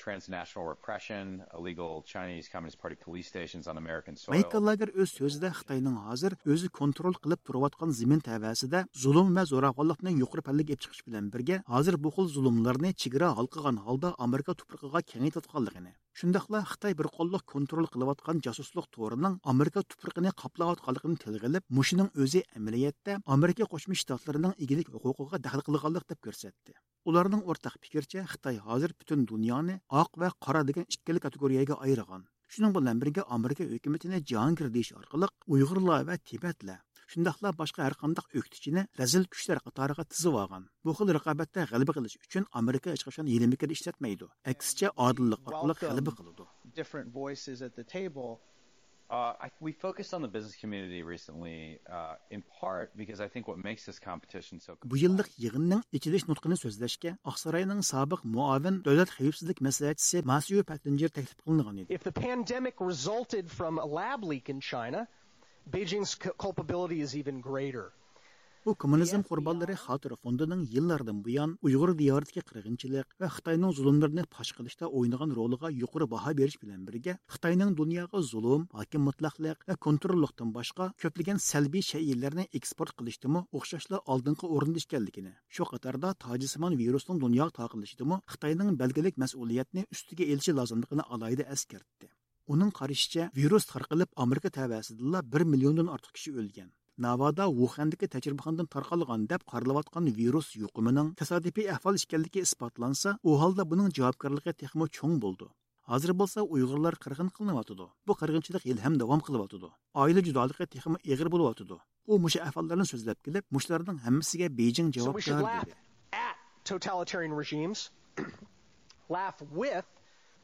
transnational repression, illegal Chinese Communist Party police stations on American soil. مايك گاللاگېر ئۆز سۆزىدە خىتاينىڭ ھازىر ئۆزى كونترول قىلىپ تۇرۇۋاتقان زېمىن تەۋەسىدە زۇلۇم ۋە زوراۋانلىقنى يۇقىرى پەللىگە ئېلىپ چىقىش بىلەن بىرگە، ھازىر بۇ خىل زۇلۇملارنى چېگرا ھالقىغان ھالدا ئامېرىكا تۇپرىقىغا كېڭەيتىۋاتقانلىقىنى، شۇنداقلا خىتاي بىر قوللۇق كونترول قىلىۋاتقان جاسۇسلۇق تورىنىڭ ئامېرىكا تۇپرىقىنى قاپلاۋاتقانلىقىنى تىلغا ئېلىپ، مۇشۇنىڭ ئۆزى ئەمەلىيەتتە ئامېرىكا قوشما شتاتلىرىنىڭ ئىگىلىك ھوقۇقىغا دەخلى قىلغانلىق دەپ كۆرسەتتى. ئۇلارنىڭ ئورتاق پىكرىچە، خىتاي ھازىر پۈتۈن دۇنيانى ئاق ۋە قارا دېگەن ئىككىلا كاتېگورىيەگە ئايرىغان. شۇنىڭ بىلەن بىرگە، ئامېرىكا ھۆكۈمىتىنى جاھانگىر دېيىش ئارقىلىق ئۇيغۇرلار ۋە تىبەتلەر، شۇنداقلا باشقا ھەرقانداق ئۆكتىچىنى رەزىل كۈچلەر قاتارىغا تىزىۋالغان. بۇ خىل رىقابەتتە غەلىبە قىلىش ئۈچۈن ئامېرىكا ھېچقاچان ھىيلە-مىكىر ئىشلەتمەيدۇ. ئەكسىچە، ئادىللىق ئارقىلىق غەلىبە قىلىدۇ. Different voices at the table. Uh, I, we focused on the business community recently, uh, in part because I think what makes this competition so بۇ يىللىق يىغىننىڭ ئېچىلىش نۇتقىنى سۆزلەشكە ئاقساراينىڭ سابىق مۇئاۋىن دۆلەت خەۋپسىزلىك مەسلىھەتچىسى ماسيۇ پەتتىنجېر تەكلىپ قىلىنغان ئىدى. If the pandemic resulted from a lab leak in China, Beijing's cu- culpability is even greater. بۇ كوممۇنىزم قۇربانلىرى خاتىرە فوندىنىڭ يىللاردىن بۇيان ئۇيغۇر دىيارىدىكى قىرغىنچىلىق ۋە خىتاينىڭ زۇلۇملىرىنى پاش قىلىشتا ئوينىغان رولىغا يۇقىرى باھا بېرىش بىلەن بىرگە، خىتاينىڭ دۇنياغا زۇلۇم، ھاكىم مۇتلەقلىق ۋە كونتروللۇقتىن باشقا كۆپلىگەن سەلبىي شەيئىلەرنى ئېكسپورت قىلىشتىمۇ ئوخشاشلا ئالدىنقى ئورۇندا ئىكەنلىكىنى، شۇ قاتاردا تاجسىمان ۋىرۇسنىڭ دۇنياغا تارقىلىشىدىمۇ خىتاينىڭ بەلگىلىك مەسئۇلىيەتنى ئۈستىگە ئېلىشى لازىملىقىنى ئالاھىدە ئەسكەرتتى. ئۇنىڭ قارىشىچە، ۋىرۇس تارقىلىپ ئامېرىكا تەۋەسىدىلا بىر مىليوندىن ئارتۇق كىشى ئۆلگەن. ناۋادا ۋۇخەندىكى تەجرىبىخانىدىن تارقالغان دەپ قارىلىۋاتقان ۋىرۇس يۇقۇمىنىڭ تاسادىپىي ئەھۋال ئىكەنلىكى ئىسپاتلانسا، ئۇ ھالدا بۇنىڭ جاۋابكارلىقى تېخىمۇ چوڭ بولىدۇ. ھازىر بولسا ئۇيغۇرلار قىرغىن قىلىنىۋاتىدۇ. بۇ قىرغىنچىلىق ھېلىھەم داۋام قىلىۋاتىدۇ. ئائىلە جۇدالىقى تېخىمۇ ئېغىر بولۇۋاتىدۇ. ئۇ مۇشۇ ئەھۋاللارنى سۆزلەپ كېلىپ، مۇشۇلارنىڭ ھەممىسىگە بېيجىڭ جاۋابكار دېدى. At totalitarian regimes, laugh with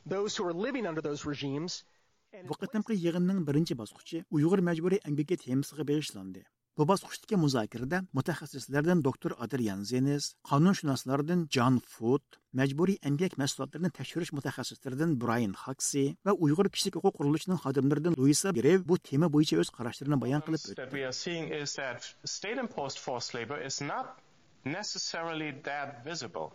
those who are living under those regimes. بۇ قېتىمقى يىغىننىڭ بىرىنچى باسقۇچى ئۇيغۇر مەجبۇرىي ئەمگىكى تېمىسىغا بېغىشلاندى. بۇ باسقۇچتىكى مۇزاكىرىدە مۇتەخەسسىسلەردىن دوكتور ئادرىيان زېنىز، قانۇنشۇناسلاردىن جان فۇت، مەجبۇرىي ئەمگەك مەھسۇلاتلىرىنى تەكشۈرۈش مۇتەخەسسىسلىرىدىن برايان خاكسى ۋە ئۇيغۇر كىشىلىك ھوقۇق قۇرۇلۇشىنىڭ خادىملىرىدىن لۇيسا گرېۋ بۇ تېما بويىچە ئۆز قاراشلىرىنى بايان قىلىپ ئۆتتى. That we are seeing is that state-imposed forced labor is not necessarily that visible.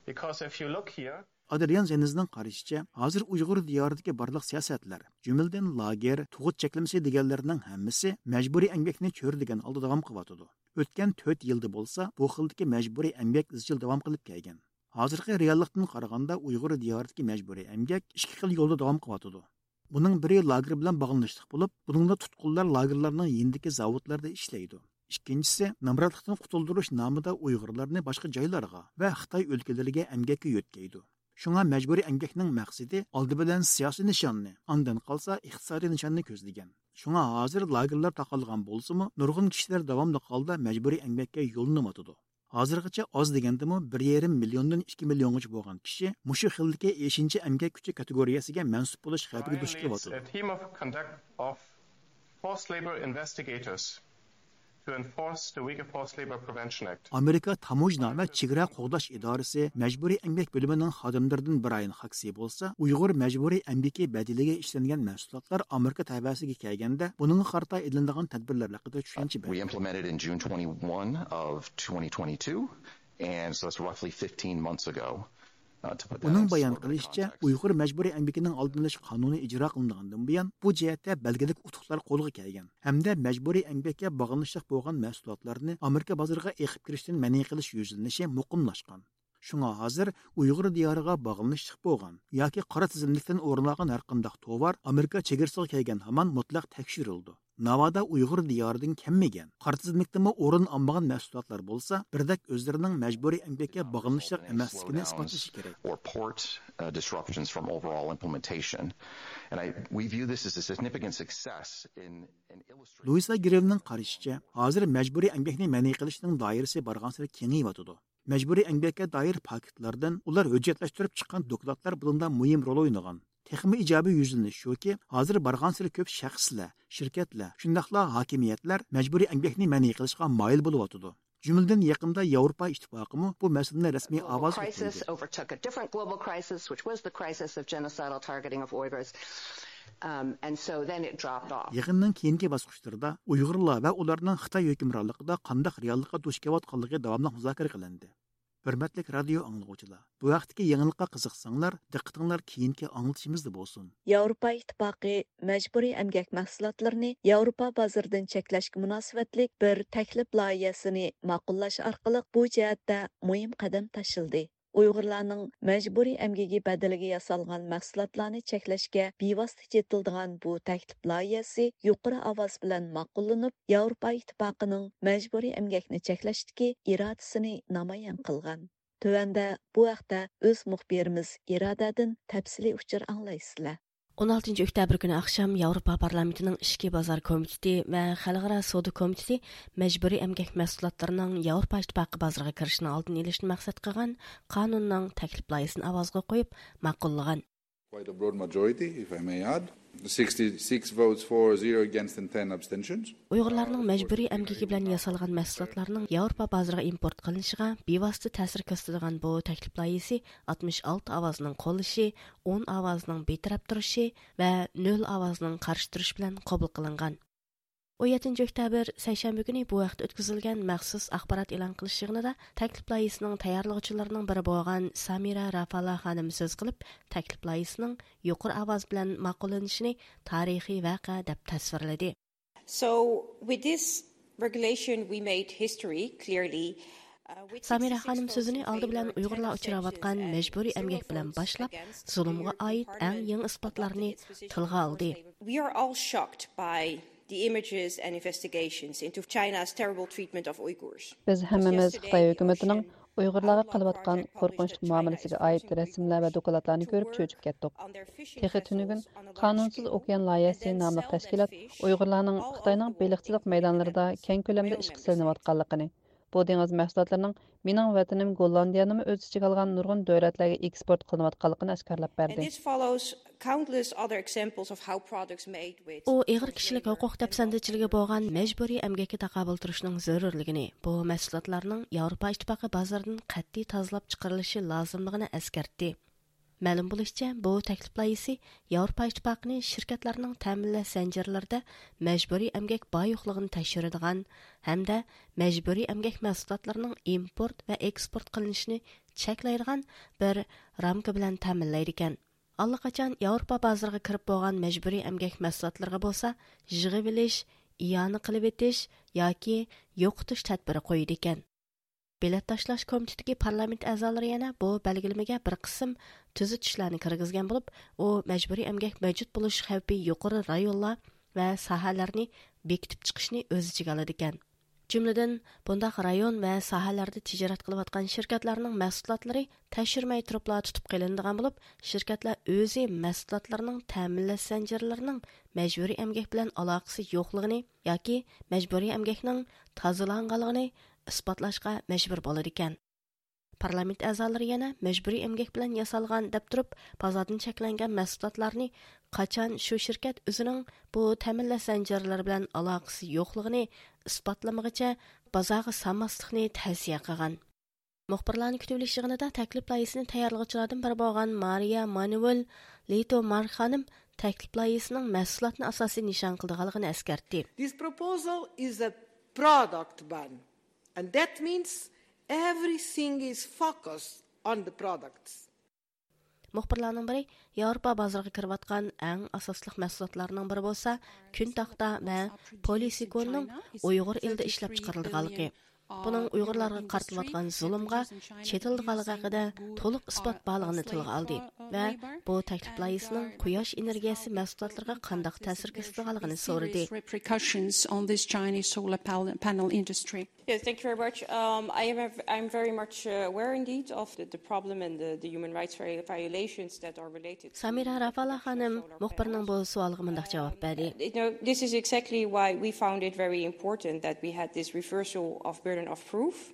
Because if you look here, ئادرىيان زېنىزنىڭ قارىشىچە، ھازىر ئۇيغۇر دىيارىدىكى بارلىق سىياسەتلەر، جۈملىدىن لاگېر، تۇغۇت چەكلىمىسى دېگەنلەرنىڭ ھەممىسى مەجبۇرىي ئەمگەكنى چۆرىدىگەن ھالدا داۋام قىلىۋاتىدۇ. ئۆتكەن تۆت يىلدا بولسا بۇ خىلدىكى مەجبۇرىي ئەمگەك ئىزچىل داۋام قىلىپ كەلگەن. ھازىرقى رېئاللىقتىن قارىغاندا ئۇيغۇر دىيارىدىكى مەجبۇرىي ئەمگەك ئىككى خىل يولدا داۋام قىلىۋاتىدۇ. بۇنىڭ بىرى لاگېر بىلەن باغلىنىشلىق بولۇپ، بۇنىڭدا تۇتقۇنلار لاگېرلارنىڭ يېنىدىكى زاۋۇتلاردا ئىشلەيدۇ. ئىككىنچىسى، نامراتلىقتىن قۇتۇلدۇرۇش نامىدا ئۇيغۇرلارنى باشقا جايلارغا ۋە خىتاي ئۆلكىلىرىگە ئەمگەككە يۆتكەيدۇ. شۇڭا مەجبۇرىي ئەمگەكنىڭ مەقسىتى ئالدى بىلەن سىياسىي نىشاننى، ئاندىن قالسا ئىقتىسادىي نىشاننى كۆزلىگەن. شۇڭا ھازىر لاگېرلار تاقالغان بولسىمۇ، نۇرغۇن كىشىلەر داۋاملىق ھالدا مەجبۇرىي ئەمگەككە يوللىنىۋاتىدۇ. ھازىرغىچە ئاز دېگەندىمۇ بىر يېرىم مىليوندىن ئىككى مىليونغىچە بولغان كىشى مۇشۇ خىلدىكى ئېشىنچا ئەمگەك كۈچى كاتېگورىيەسىگە مەنسۇپ بولۇش خەۋپىگە دۇچ كېلىۋاتىدۇ. A team of conduct of forced labor investigators to enforce the Uyghur Forced Labor Prevention Act. ئامېرىكا تاموژنا ۋە چېگرا قوغداش ئىدارىسى مەجبۇرىي ئەمگەك بۆلۈمىنىڭ خادىملىرىدىن برايان خاكسى بولسا، ئۇيغۇر مەجبۇرىي ئەمگىكى بەدىلىگە ئىشلەنگەن مەھسۇلاتلار ئامېرىكا تەۋەسىگە كەلگەندە، بۇنىڭغا قارىتا ئېلىنىدىغان تەدبىرلەر ھەققىدە چۈشەنچە بەردى. We implemented in June twenty-one of twenty twenty-two, and so that's roughly fifteen months ago. ئۇنىڭ بايان قىلىشىچە، ئۇيغۇر مەجبۇرىي ئەمگىكىنىڭ ئالدىنى ئېلىش قانۇنى ئىجرا قىلىنغاندىن بۇيان، بۇ جەھەتتە بەلگىلىك ئۇتۇقلار قولغا كەلگەن ھەمدە مەجبۇرىي ئەمگەككە باغلىنىشلىق بولغان مەھسۇلاتلارنى ئامېرىكا بازىرىغا ئېقىپ كىرىشتىن مەنئى قىلىش يۈزلىنىشى مۇقىملاشقان. شۇڭا ھازىر ئۇيغۇر دىيارىغا باغلىنىشلىق بولغان ياكى قارا تىزىملىكتىن ئورۇن ئالغان ھەرقانداق توۋار ئامېرىكا چېگرىسىغا كەلگەن ھامان مۇتلەق تەكشۈرۈلىدۇ. ناۋادا ئۇيغۇر دىيارىدىن كەلمىگەن، قارا تىزىملىكتىمۇ ئورۇن ئالمىغان مەھسۇلاتلار بولسا، بىردەك ئۆزلىرىنىڭ مەجبۇرىي ئەمگەككە باغلىنىشلىق ئەمەسلىكىنى ئىسپاتلىشى كېرەك. Or port, uh, disruptions from overall implementation. And I, we view this as a significant success in, in illustrating لۇئىسا گرېۋنىڭ قارىشىچە، ھازىر مەجبۇرىي ئەمگەكنى مەنئى قىلىشنىڭ دائىرىسى بارغانسېرى كېڭىيىۋاتىدۇ. مەجبۇرىي ئەمگەككە دائىر پاكىتلاردىن ئۇلار ھۆججەتلەشتۈرۈپ چىققان دوكلاتلار بۇنىڭدا مۇھىم رول ئوينىغان. تېخىمۇ ئىجابىي يۈزلىنىش شۇكى، ھازىر بارغانسېرى كۆپ شەخسلەر، شىركەتلەر، شۇنداقلا ھاكىمىيەتلەر مەجبۇرىي ئەمگەكنى مەنئى قىلىشقا مايىل بولۇۋاتىدۇ. جۈملىدىن يېقىندا ياۋروپا ئىتتىپاقىمۇ بۇ مەسىلىنى رەسمىي ئاۋازغا كۆتۈردى. Crisis overtook a different global crisis, which was the crisis of genocidal targeting of Uyghurs. Um, and so then it dropped off. يىغىننىڭ كېيىنكى باسقۇچلىرىدا ئۇيغۇرلار ۋە ئۇلارنىڭ خىتاي ھۆكۈمرانلىقىدا قانداق رېئاللىققا دۇچ كېلىۋاتقانلىقى داۋاملىق مۇزاكىرە قىلىندى. ھۆرمەتلىك رادىيو ئاڭلىغۇچىلار، بۇ ھەقتىكى يېڭىلىققا قىزىقساڭلار، دىققىتىڭلار كېيىنكى ئاڭلىتىشىمىزدا بولسۇن. ياۋروپا ئىتتىپاقى مەجبۇرىي ئەمگەك مەھسۇلاتلىرىنى ياۋروپا بازىرىدىن چەكلەشكە مۇناسىۋەتلىك بىر تەكلىپ لايىھەسىنى ماقۇللاش ئارقىلىق بۇ جەھەتتە مۇھىم قەدەم تاشلىدى. ئۇيغۇرلارنىڭ مەجبۇرىي ئەمگىكى بەدىلىگە ياسالغان مەھسۇلاتلارنى چەكلەشكە بىۋاسىتە چېتىلىدىغان بۇ تەكلىپ لايىھەسى يۇقىرى ئاۋاز بىلەن ماقۇللىنىپ، ياۋروپا ئىتتىپاقىنىڭ مەجبۇرىي ئەمگەكنى چەكلەشتىكى ئىرادىسىنى نامايان قىلغان. تۆۋەندە بۇ ھەقتە ئۆز مۇخبىرىمىز ئىرادەدىن تەپسىلىي ئۇچۇر ئاڭلايسىلەر. ئون ئالتىنچى ئۆكتەبىر كۈنى ئاخشام ياۋروپا پارلامېنتىنىڭ ئىچكى بازار كومىتېتى ۋە خەلقئارا سودا كومىتېتى مەجبۇرىي ئەمگەك مەھسۇلاتلىرىنىڭ ياۋروپا ئىتتىپاقى بازىرىغا كىرىشىنىڭ ئالدىنى ئېلىشنى مەقسەت قىلغان قانۇننىڭ تەكلىپ لايىھىسىنى ئاۋازغا قويۇپ ماقۇللىغان. Quite a broad majority, if I may add. Sixty-six votes for, zero against and ten abstentions. ئۇيغۇرلارنىڭ مەجبۇرىي ئەمگىكى بىلەن ياسالغان مەھسۇلاتلارنىڭ ياۋروپا بازىرىغا ئىمپورت قىلىنىشىغا بىۋاسىتە تەسىر كۆرسىتىدىغان بۇ تەكلىپ لايىھىسى ئاتمىش ئالتە ئاۋازنىڭ قوللىشى، ئون ئاۋازنىڭ بىتەرەپ تۇرۇشى ۋە نۆل ئاۋازنىڭ قارشى تۇرۇشى بىلەن قوبۇل قىلىنغان. ئون يەتتىنچى ئۆكتەبىر سەيشەنبە كۈنى بۇ ھەقتە ئۆتكۈزۈلگەن مەخسۇس ئاخبارات ئېلان قىلىش يىغىنىدا تەكلىپ لايىھىسىنىڭ تەييارلىغۇچىلىرىنىڭ بىرى بولغان سامىرا رافالا خانىم سۆز قىلىپ، تەكلىپ لايىھىسىنىڭ يۇقىرى ئاۋاز بىلەن ماقۇللىنىشىنى تارىخىي ۋەقە دەپ تەسۋىرلىدى. So, with this regulation, we made history, clearly. سامىرا خانىم سۆزىنى ئالدى بىلەن ئۇيغۇرلار ئۇچراۋاتقان مەجبۇرىي ئەمگەك بىلەن باشلاپ، زۇلۇمغا ئائىت ئەڭ يېڭى ئىسپاتلارنى تىلغا ئالدى. We are all shocked by the images and investigations into China's terrible treatment of Uyghurs. بىز ھەممىمىز خىتاي ھۆكۈمىتىنىڭ ئۇيغۇرلارغا قىلىۋاتقان قورقۇنچلۇق مۇئامىلىسىگە ئائىت رەسىملەر ۋە دوكلاتلارنى كۆرۈپ چۆچۈپ كەتتۇق. تېخى تۈنۈگۈن قانۇنسىز ئوكيان لايىھەسى ناملىق تەشكىلات ئۇيغۇرلارنىڭ خىتاينىڭ بېلىقچىلىق مەيدانلىرىدا كەڭ كۆلەمدە ئىشقا سېلىنىۋاتقانلىقىنى، بۇ دېڭىز مەھسۇلاتلىرىنىڭ مېنىڭ ۋەتىنىم گوللاندىيەنىمۇ ئۆز ئىچىگە ئالغان نۇرغۇن دۆلەتلەرگە ئېكسپورت قىلىنىۋاتقانلىقىنى ئاشكارىلاپ بەردى. ئۇ ئېغىر كىشىلىك ھوقۇق دەپسەندىچىلىكى بولغان مەجبۇرىي ئەمگەككە تاقابىل تۇرۇشنىڭ زۆرۈرلۈكىنى، بۇ مەھسۇلاتلارنىڭ ياۋروپا ئىتتىپاقى بازىرىدىن قەتئىي تازىلاپ چىقىرىلىشى لازىملىقىنى ئەسكەرتتى. مەلۇم بولۇشىچە، بۇ تەكلىپ لايىھىسى ياۋروپا ئىتتىپاقىنى شىركەتلەرنىڭ تەمىنلەش زەنجىرلىرىدە مەجبۇرىي ئەمگەك بار يوقلۇقىنى تەكشۈرىدىغان ھەمدە مەجبۇرىي ئەمگەك مەھسۇلاتلىرىنىڭ ئىمپورت ۋە ئېكسپورت قىلىنىشىنى چەكلەيدىغان بىر رامكا بىلەن تەمىنلەيدىكەن. ئاللىقاچان ياۋروپا بازىرىغا كىرىپ بولغان مەجبۇرىي ئەمگەك مەھسۇلاتلىرىغا بولسا يىغىۋېلىش، ئىئانە قىلىۋېتىش ياكى يوقىتىش تەدبىرى قويىدىكەن. بېلەت تاشلاش كومىتېتىدىكى پارلامېنت ئەزالىرى يەنە بۇ بەلگىلىمىگە بىر قىسىم تۈزىتىشلەرنى كىرگۈزگەن بولۇپ، ئۇ مەجبۇرىي ئەمگەك مەۋجۇت بولۇش خەۋپى يۇقىرى رايونلار ۋە ساھەلەرنى بېكىتىپ چىقىشنى ئۆز ئىچىگە ئالىدىكەن. جۈملىدىن، بۇنداق رايون ۋە ساھەلەردە تىجارەت قىلىۋاتقان شىركەتلەرنىڭ مەھسۇلاتلىرى تەكشۈرمەي تۇرۇپلا تۇتۇپ قېلىنىدىغان بولۇپ، شىركەتلەر ئۆزى مەھسۇلاتلىرىنىڭ تەمىنلەش زەنجىرلىرىنىڭ مەجبۇرىي ئەمگەك بىلەن ئالاقىسى يوقلۇقىنى ياكى مەجبۇرىي ئەمگەكنىڭ تازىلانغانلىقىنى ئىسپاتلاشقا مەجبۇر بولىدىكەن. پارلامېنت ئەزالىرى يەنە مەجبۇرىي ئەمگەك بىلەن ياسالغان دەپ تۇرۇپ، بازاردىن چەكلەنگەن مەھسۇلاتلارنى قاچان شۇ شىركەت ئۆزىنىڭ بۇ تەمىنلەش زەنجىرلىرى بىلەن ئالاقىسى يوقلۇقىنى ئىسپاتلىمىغىچە بازارغا سالماسلىقنى تەۋسىيە قىلغان. مۇخبىرلارنى كۈتۈۋېلىش يىغىنىدا تەكلىپ لايىھىسىنى تەييارلىغۇچىلاردىن بىرى بولغان مارىيا مانۇۋېل لىتو مار خانىم تەكلىپ لايىھىسىنىڭ مەھسۇلاتنى ئاساسىي نىشان قىلىدىغانلىقىنى ئەسكەرتتى. This proposal is a product ban, and that means everything is focused on the products. مۇخبىرلارنىڭ بىرى ياۋروپا بازىرىغا كىرىۋاتقان ئەڭ ئاساسلىق مەھسۇلاتلارنىڭ بىرى بولسا كۈن تاختا ۋە پولىسىكوننىڭ ئۇيغۇر ئېلىدە ئىشلەپچىقىرىلىدىغانلىقى، بۇنىڭ ئۇيغۇرلارغا قارىتىلىۋاتقان زۇلۇمغا چېتىلىدىغانلىقى ھەققىدە تولۇق ئىسپات بارلىقىنى تىلغا ئالدى ۋە بۇ تەكلىپ لايىھىسىنىڭ قۇياش ئېنېرگىيەسى مەھسۇلاتلىرىغا قانداق تەسىر كۆرسىتىدىغانلىقىنى سورىدى. Repercussions on this Chinese solar pal-, panel industry. Yes, thank you very much. Um, I am, I'm very much uh, aware indeed of the, the problem and the, the human rights vi-, violations that are related to سامىرا رافالا خانىم مۇخبىرنىڭ بۇ سوئالىغا مۇنداق جاۋاب بەردى. You know, this is exactly why we found it very important that we had this reversal of burden of proof.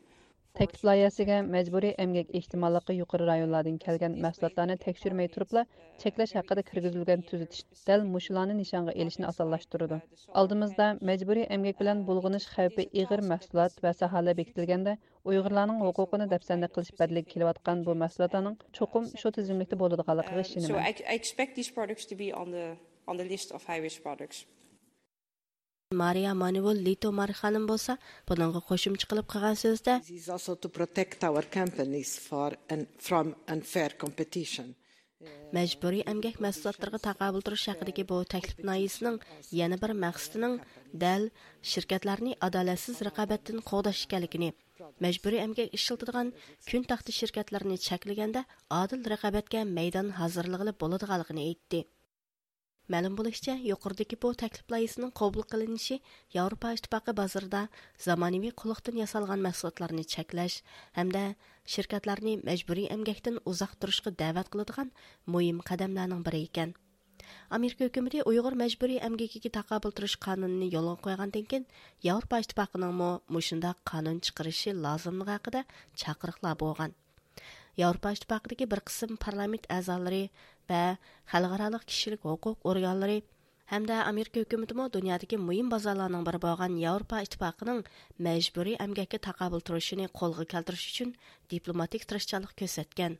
تەكلىپ لايىھەسىگە مەجبۇرىي ئەمگەك ئېھتىماللىقى يۇقىرى رايونلاردىن كەلگەن مەھسۇلاتلارنى تەكشۈرمەي تۇرۇپلا چەكلەش ھەققىدە كىرگۈزۈلگەن تۈزىتىش دەل مۇشۇلارنى نىشانغا ئېلىشنى ئاسانلاشتۇرىدۇ. ئالدىمىزدا مەجبۇرىي ئەمگەك بىلەن بۇلغىنىش خەۋپى ئېغىر مەھسۇلات ۋە ساھەلەر بېكىتىلگەندە، ئۇيغۇرلارنىڭ ھوقۇقىنى دەپسەندە قىلىش بەدىلىگە كېلىۋاتقان بۇ مەھسۇلاتلارنىڭ چوقۇم شۇ تىزىملىكتە بولىدىغانلىقىغا Um, so ئىشىنىمەن. I, I expect these products to be on the, on the list of high-risk products. مارىيا مانۇۋېل لىتو مار خانىم بولسا بۇنىڭغا قوشۇمچە قىلىپ قىلغان سۆزىدە، This is also to protect our companies for un-, from unfair competition. مەجبۇرىي ئەمگەك مەھسۇلاتلىرىغا تاقابىل تۇرۇش ھەققىدىكى بۇ تەكلىپ لايىھىسىنىڭ يەنە بىر مەقسىتىنىڭ دەل شىركەتلەرنى ئادالەتسىز رىقابەتتىن قوغداش ئىكەنلىكىنى، مەجبۇرىي ئەمگەك ئىشلىتىدىغان كۈن تاختا شىركەتلىرىنى چەكلىگەندە ئادىل رىقابەتكە مەيدان ھازىرلىغىلى بولىدىغانلىقىنى ئېيتتى. مەلۇم بولۇشىچە، يۇقىرىدىكى بۇ تەكلىپ لايىھىسىنىڭ قوبۇل قىلىنىشى ياۋروپا ئىتتىپاقى بازىرىدا زامانىۋى قۇللۇقتىن ياسالغان مەھسۇلاتلارنى چەكلەش ھەمدە شىركەتلەرنى مەجبۇرىي ئەمگەكتىن ئۇزاق تۇرۇشقا دەۋەت قىلىدىغان مۇھىم قەدەملەرنىڭ بىرى ئىكەن. ئامېرىكا ھۆكۈمىتى ئۇيغۇر مەجبۇرىي ئەمگىكىگە تاقابىل تۇرۇش قانۇنىنى يولغا قويغاندىن كېيىن، ياۋروپا ئىتتىپاقىنىڭمۇ مۇشۇنداق قانۇن چىقىرىشى لازىملىقى ھەققىدە چاقىرىقلار بولغان. ياۋروپا ئىتتىپاقىدىكى بىر قىسىم پارلامېنت ئەزالىرى ۋە خەلقئارالىق كىشىلىك ھوقۇق ئورگانلىرى ھەمدە ئامېرىكا ھۆكۈمىتىمۇ دۇنيادىكى مۇھىم بازارلارنىڭ بىرى بولغان ياۋروپا ئىتتىپاقىنىڭ مەجبۇرىي ئەمگەككە تاقابىل تۇرۇشىنى قولغا كەلتۈرۈش ئۈچۈن دىپلوماتىك تىرىشچانلىق كۆرسەتكەن.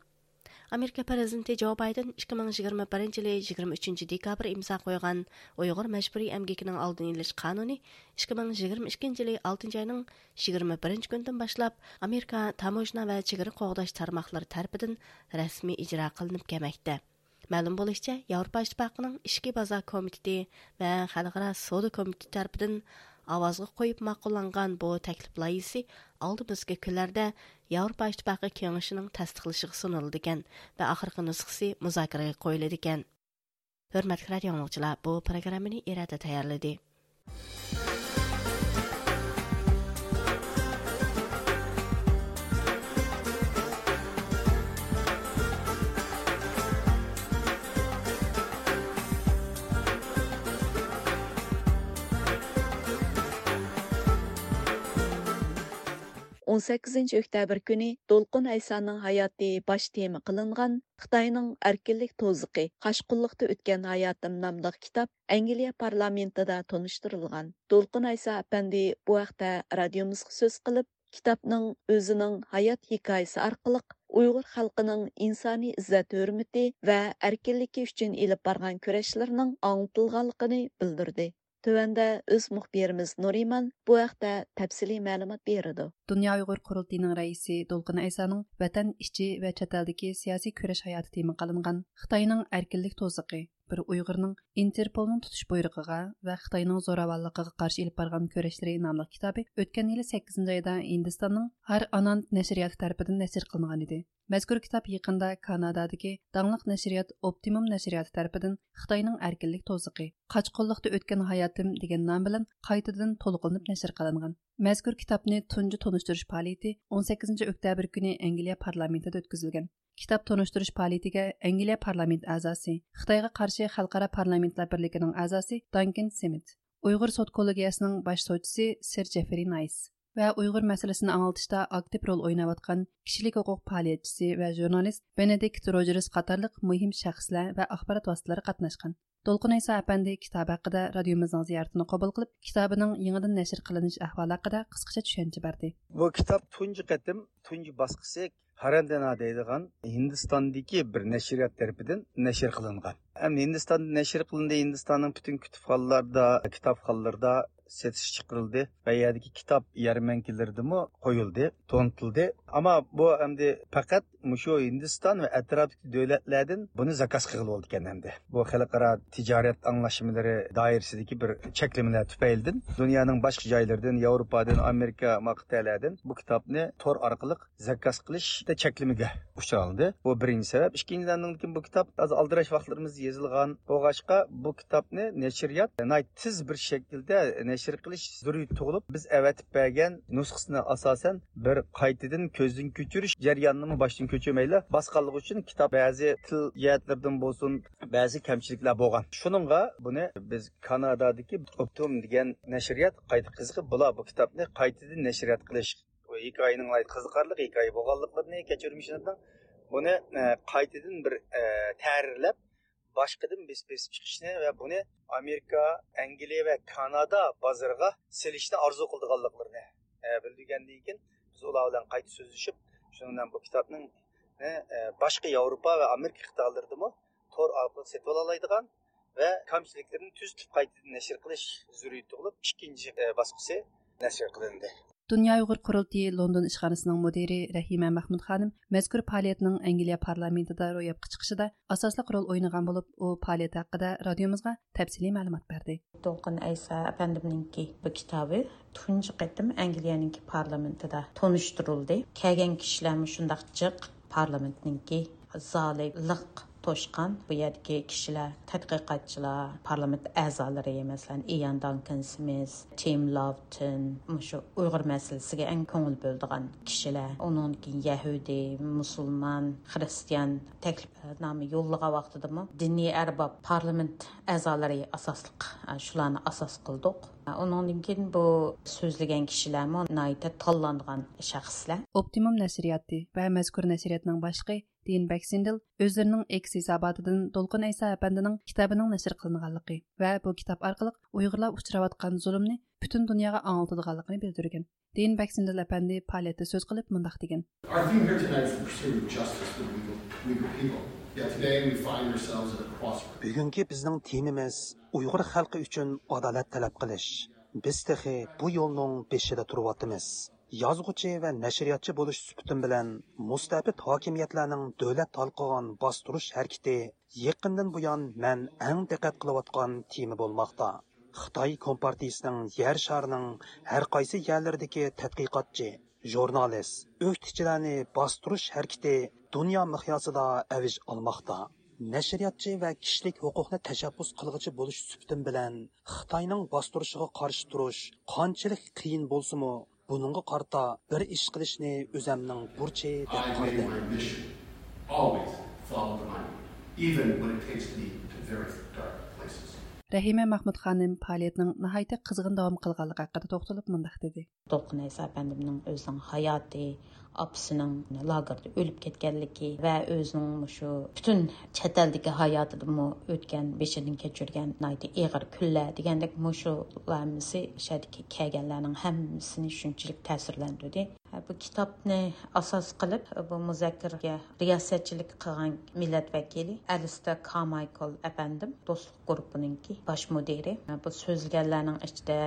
ئامېرىكا پىرېزىدېنتى جو بايدېن ئىككى مىڭ يىگىرمە بىرىنچى يىلى يىگىرمە ئۈچىنچى دېكابىر ئىمزا قويغان ئۇيغۇر مەجبۇرىي ئەمگىكىنىڭ ئالدىنى ئېلىش قانۇنى ئىككى مىڭ يىگىرمە ئىككىنچى يىلى ئالتىنچى ئاينىڭ يىگىرمە بىرىنچى كۈنىدىن باشلاپ ئامېرىكا تاموژنا ۋە چېگرا قوغداش تارماقلىرى تەرىپىدىن رەسمىي ئىجرا قىلىنىپ كەلمەكتە. مەلۇم بولۇشىچە، ياۋروپا ئىتتىپاقىنىڭ ئىچكى بازار كومىتېتى ۋە خەلقئارا سودا كومىتېتى تەرىپىدىن ئاۋازغا قويۇپ ماقۇللانغان بۇ تەكلىپ لايىھىسى ئالدىمىزدىكى كۈنلەردە ياۋروپا ئىتتىپاقى كېڭىشىنىڭ تەستىقلىشىغا سۇنۇلىدىكەن ۋە ئاخىرقى نۇسخىسى مۇزاكىرىگە قويۇلىدىكەن. ھۆرمەتلىك رادىئو ئاڭلىغۇچىلار، بۇ پروگراممىنى ئىرادە تەييارلىدى. ئون سەككىزىنچى ئۆكتەبىر كۈنى دولقۇن ئەيسانىڭ ھاياتى باش تېما قىلىنغان خىتاينىڭ ئەركىنلىك توزىقى، قاچقۇنلۇقتا ئۆتكەن ھاياتىم ناملىق كىتاب ئەنگلىيە پارلامېنتىدا تونۇشتۇرۇلغان. دولقۇن ئەيسا ئەپەندى بۇ ھەقتە رادىيومىزغا سۆز قىلىپ، كىتابنىڭ ئۆزىنىڭ ھايات ھېكايىسى ئارقىلىق ئۇيغۇر خەلقىنىڭ ئىنسانىي ئىززەت-ھۆرمىتى ۋە ئەركىنلىكى ئۈچۈن ئېلىپ بارغان كۈرەشلىرىنىڭ ئاڭلىتىلغانلىقىنى بىلدۈردى. تۆۋەندە ئۆز مۇخبىرىمىز نۇرىمان بۇ ھەقتە تەپسىلىي مەلۇمات بېرىدۇ. دۇنيا ئۇيغۇر قۇرۇلتىيىنىڭ رەئىسى دولقۇن ئەيسانىڭ ۋەتەن ئىچى ۋە چەت ئەلدىكى سىياسىي كۈرەش ھاياتى تېما قىلىنغان خىتاينىڭ ئەركىنلىك توزىقى، بىر ئۇيغۇرنىڭ ئىنتېرپولنىڭ تۇتۇش بۇيرۇقىغا ۋە خىتاينىڭ زوراۋانلىقىغا قارشى ئېلىپ بارغان كۈرەشلىرى ناملىق كىتابى ئۆتكەن يىلى سەككىزىنچى ئايدا ھىندىستاننىڭ ھار ئاناند نەشرىياتى تەرىپىدىن نەشر قىلىنغان ئىدى. مەزكۇر كىتاب يېقىندا كانادادىكى داڭلىق نەشرىيات ئوپتىموم نەشرىياتى تەرىپىدىن خىتاينىڭ ئەركىنلىك توزىقى، قاچقۇنلۇقتا ئۆتكەن ھاياتىم دېگەن نام بىلەن قايتىدىن تولۇقلىنىپ نەشر قىلىنغان. مەزكۇر كىتابنى تۇنجى تونۇشتۇرۇش پائالىيىتى ئون سەككىزىنچى ئۆكتەبىر كۈنى ئەنگلىيە پارلامېنتىدا ئۆتكۈزۈلگەن. كىتاب تونۇشتۇرۇش پائالىيىتىگە ئەنگلىيە پارلامېنت ئەزاسى، خىتايغا قارشى خەلقئارا پارلامېنتلار بىرلىكىنىڭ ئەزاسى دانكىن سىمىت، ئۇيغۇر سوت كوللېگىيەسىنىڭ باش سوتچىسى سىر جېفرى نايس ۋە ئۇيغۇر مەسىلىسىنى ئاڭلىتىشتا ئاكتىپ رول ئويناۋاتقان كىشىلىك ھوقۇق پائالىيەتچىسى ۋە ژۇرنالىست بېنېدىكت روجېرس قاتارلىق مۇھىم شەخسلەر ۋە ئاخبارات ۋاسىتىلىرى قاتناشقان. دولقۇن ئەيسا ئەپەندى كىتاب ھەققىدە رادىيومىزنىڭ زىيارىتىنى قوبۇل قىلىپ، كىتابىنىڭ يېڭىدىن نەشر قىلىنىش ئەھۋالى ھەققىدە قىسقىچە چۈشەنچە بەردى. بۇ كىتاب تۇنجى قېتىم، تۇنجى باسقۇسى ھارەندەنا دەيدىغان ھىندىستاندىكى بىر نەشرىيات تەرىپىدىن نەشر قىلىنغان. ھەم ھىندىستاندا نەشر قىلىندى، ھىندىستاننىڭ پۈتۈن كۇتۇپخانىلاردا، كىتابخانىلىرىدا سېتىشقا چىقىرىلدى ۋە يەردىكى كىتاب يەرمەنكىلىرىدىمۇ قويۇلدى، تونۇتۇلدى. ئەمما بۇ ئەمدى پەقەت مۇشۇ ھىندىستان ۋە ئەتراپتىكى دۆلەتلەردىن بۇنى زاكاز قىلغىلى بولىدىكەن ئەمدى. بۇ خەلقئارا تىجارەت ئاڭلاشمىلىرى دائىرىسىدىكى بىر چەكلىمىلەر تۈپەيلىدىن دۇنيانىڭ باشقا جايلىرىدىن، ياۋروپادىن، ئامېرىكا، ما قىتئەلەردىن بۇ كىتابنى تور ئارقىلىق زاكاز قىلىشتا چەكلىمىگە ئۇچرالدى. بۇ بىرىنچى سەۋەب. ئىككىنچىدىن، ئاندىن كېيىن بۇ كىتاب ھازىر ئالدىراش ۋاقىتلىرىمىزدا يېزىلغان بولغاچقا، بۇ كىتابنى نەشرىيات ناھايىتى تېز بىر شەكىلدە نەشر قىلىش زۆرۈرىيىتى تۇغۇلۇپ، بىز ئەۋەتىپ بەرگەن نۇسخىسىنى ئاساسەن بىر قايتىدىن كۆزدىن كۆچۈرۈش جەريانىنىمۇ باشتىن كۆچۈرمەيلا باسقانلىقى ئۈچۈن كىتاب بەزى تىل جەھەتلىرىدىن بولسۇن، بەزى كەمچىلىكلەر بولغان. شۇنىڭغا بۇنى بىز كانادادىكى ئوپتىم دېگەن نەشرىيات قايتا قىزىقىپ، بۇلار بۇ كىتابنى قايتىدىن نەشرىيات قىلىش، بۇ ھېكايىنىڭ ناھايىتى قىزىقارلىق ھېكايە بولغانلىقلىرىنى، كەچۈرمىشىنىڭ بۇنى، ئە، قايتىدىن بىر، ئە، تەھرىرلەپ، باشقىدىن بېسىپ، بېسىپ چىقىشنى ۋە بۇنى ئامېرىكا، ئەنگلىيە ۋە كانادا بازىرىغا سېلىشنى ئارزۇ قىلىدىغانلىقلىرىنى، ئە، بىلدۈرگەندىن كېيىن، بىز ئۇلار بىلەن قايتا سۆزلىشىپ، شۇنىڭ بىلەن بۇ كىتابنىڭ، ئە، باشقا ياۋروپا ۋە ئامېرىكا قىتئەلىرىدىمۇ تور ئارقىلىق سېتىۋالالايدىغان ۋە كەمچىلىكلىرىنى تۈزىتىپ قايتىدىن نەشر قىلىش زۆرۈرىيىتى تۇغۇلۇپ، ئىككىنچى، ئە، باسقۇسى نەشر قىلىندى. دۇنيا ئۇيغۇر قۇرۇلتىيى لوندون ئىشخانىسىنىڭ مۇدىرى رەھىمە مەھمۇد خانىم مەزكۇر پائالىيەتنىڭ ئەنگلىيە پارلامېنتىدا روياپقا چىقىشىدا ئاساسلىق رول ئوينىغان بولۇپ، ئۇ پائالىيەت ھەققىدە رادىيومىزغا تەپسىلىي مەلۇمات بەردى. دولقۇن ئەيسا ئەپەندىمنىڭكى بۇ كىتابى تۇنجى قېتىم ئەنگلىيەنىڭكى پارلامېنتىدا تونۇشتۇرۇلدى. كەلگەن كىشىلەرمۇ شۇنداق جىق پارلامېنتنىڭكى زالى لىق توشقان. بۇ يەردىكى كىشىلەر، تەتقىقاتچىلار، پارلامېنت ئەزالىرى، مەسىلەن، ئىيان دانكن سمىس، تىم لاۋتون، مۇشۇ ئۇيغۇر مەسىلىسىگە ئەڭ كۆڭۈل بۆلىدىغان كىشىلەر. ئۇنىڭدىن كېيىن يەھۇدىي، مۇسۇلمان، خىرىستىيان تەكلىپنامە يوللىغان ۋاقتىدىمۇ دىنىي ئەرباب، پارلامېنت ئەزالىرى ئاساسلىق، شۇلارنى ئاساس قىلدۇق. ئۇنىڭدىن كېيىن بۇ سۆزلىگەن كىشىلەرمۇ ناھايىتى تاللانغان شەخسلەر. ئوپتىموم نەشرىياتى ۋە مەزكۇر نەشرىياتنىڭ باشلىقى دېن بەكسىندېل ئۆزلىرىنىڭ ئېكس ھېساباتىدىن دولقۇن ئەيسا ئەپەندىنىڭ كىتابىنىڭ نەشر قىلىنغانلىقى ۋە بۇ كىتاب ئارقىلىق ئۇيغۇرلار ئۇچراۋاتقان زۇلۇمنى پۈتۈن دۇنياغا ئاڭلىتىدىغانلىقىنى بىلدۈرگەن. دېن بەكسىندېل ئەپەندى پائالىيەتتە سۆز قىلىپ مۇنداق دېگەن. Our theme here tonight is the pursuit of justice for the Uyghur, Uyghur people. Yet today we find ourselves at a crossroads. بۈگۈنكى بىزنىڭ تېمىمىز ئۇيغۇر خەلقى ئۈچۈن ئادالەت تەلەپ قىلىش. بىز تېخى بۇ يولنىڭ بېشىدا تۇرۇۋاتىمىز. يازغۇچى ۋە نەشرىياتچى بولۇش سۈپىتىم بىلەن مۇستەبىت ھاكىمىيەتلەرنىڭ دۆلەت ھالقىغان باستۇرۇش ھەرىكىتى يېقىندىن بۇيان مەن ئەڭ دىققەت قىلىۋاتقان تېما بولماقتا. خىتاي كومپارتىيىسىنىڭ يەر شارىنىڭ ھەر قايسى يەرلىرىدىكى تەتقىقاتچى، ژۇرنالىست، ئۆكتىچىلەرنى باستۇرۇش ھەرىكىتى دۇنيا مىقياسىدا ئەۋج ئالماقتا. نەشرىياتچى ۋە كىشىلىك ھوقۇقنى تەشەببۇس قىلغۇچى بولۇش سۈپىتىم بىلەن خىتاينىڭ باستۇرۇشىغا قارشى تۇرۇش قانچىلىك قىيىن بولسىمۇ، بۇنىڭغا قارىتا بىر ئىش قىلىشنى ئۆزەمنىڭ بۇرچى دەپ قارىدىم. Always follow the money, even when it takes me to very dark places. رەھىمە مەخمۇت خانىم پائالىيەتنىڭ ناھايىتى قىزغىن داۋام قىلغانلىقى ھەققىدە توختىلىپ مۇنداق دېدى. دولقۇن ئەيسا ئەپەندىمنىڭ ئۆزىنىڭ ھاياتى، ئاپىسىنىڭ لاگېردا ئۆلۈپ كەتكەنلىكى ۋە ئۆزىنىڭ مۇشۇ پۈتۈن چەت ئەلدىكى ھاياتىدىمۇ ئۆتكەن، بېشىدىن كەچۈرگەن ناھايىتى ئېغىر كۈنلەر دېگەندەك، مۇشۇلار ھەممىسى شەھەردىكى كەلگەنلەرنىڭ ھەممىسىنى شۇنچىلىك تەسىرلەندۈردى. بۇ كىتابنى ئاساس قىلىپ، بۇ مۇزاكىرىگە رىياسەتچىلىك قىلغان مىللەت ۋەكىلى ئەلىستېر كارمايكل ئەپەندىم، دوستلۇق گۇرۇپپىنىڭكى باش مۇدىرى. بۇ سۆزلىگەنلەرنىڭ ئىچىدە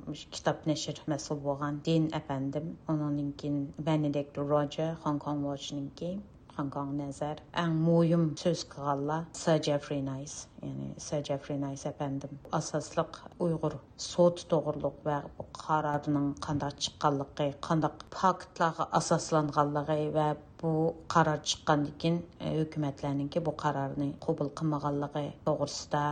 مۇشۇ كىتاب نەشر مەسئۇل بولغان دېن ئەپەندىم، ئۇنىڭدىن كېيىن بېنېدىكت روجېر، خوڭكوڭ ۋوچنىڭكى، خوڭكوڭ نەزەر. ئەڭ مۇھىم سۆز قىلغانلار سىر جېفرى نايس، يەنى سىر جېفرى نايس ئەپەندىم ئاساسلىق ئۇيغۇر سوتى توغرۇلۇق ۋە بۇ قارارنىڭ قانداق چىققانلىقى، قانداق پاكىتلارغا ئاساسلانغانلىقى ۋە بۇ قارار چىققاندىن كېيىن، ئە، ھۆكۈمەتلەرنىڭكى بۇ قارارنى قوبۇل قىلمىغانلىقى توغرىسىدا،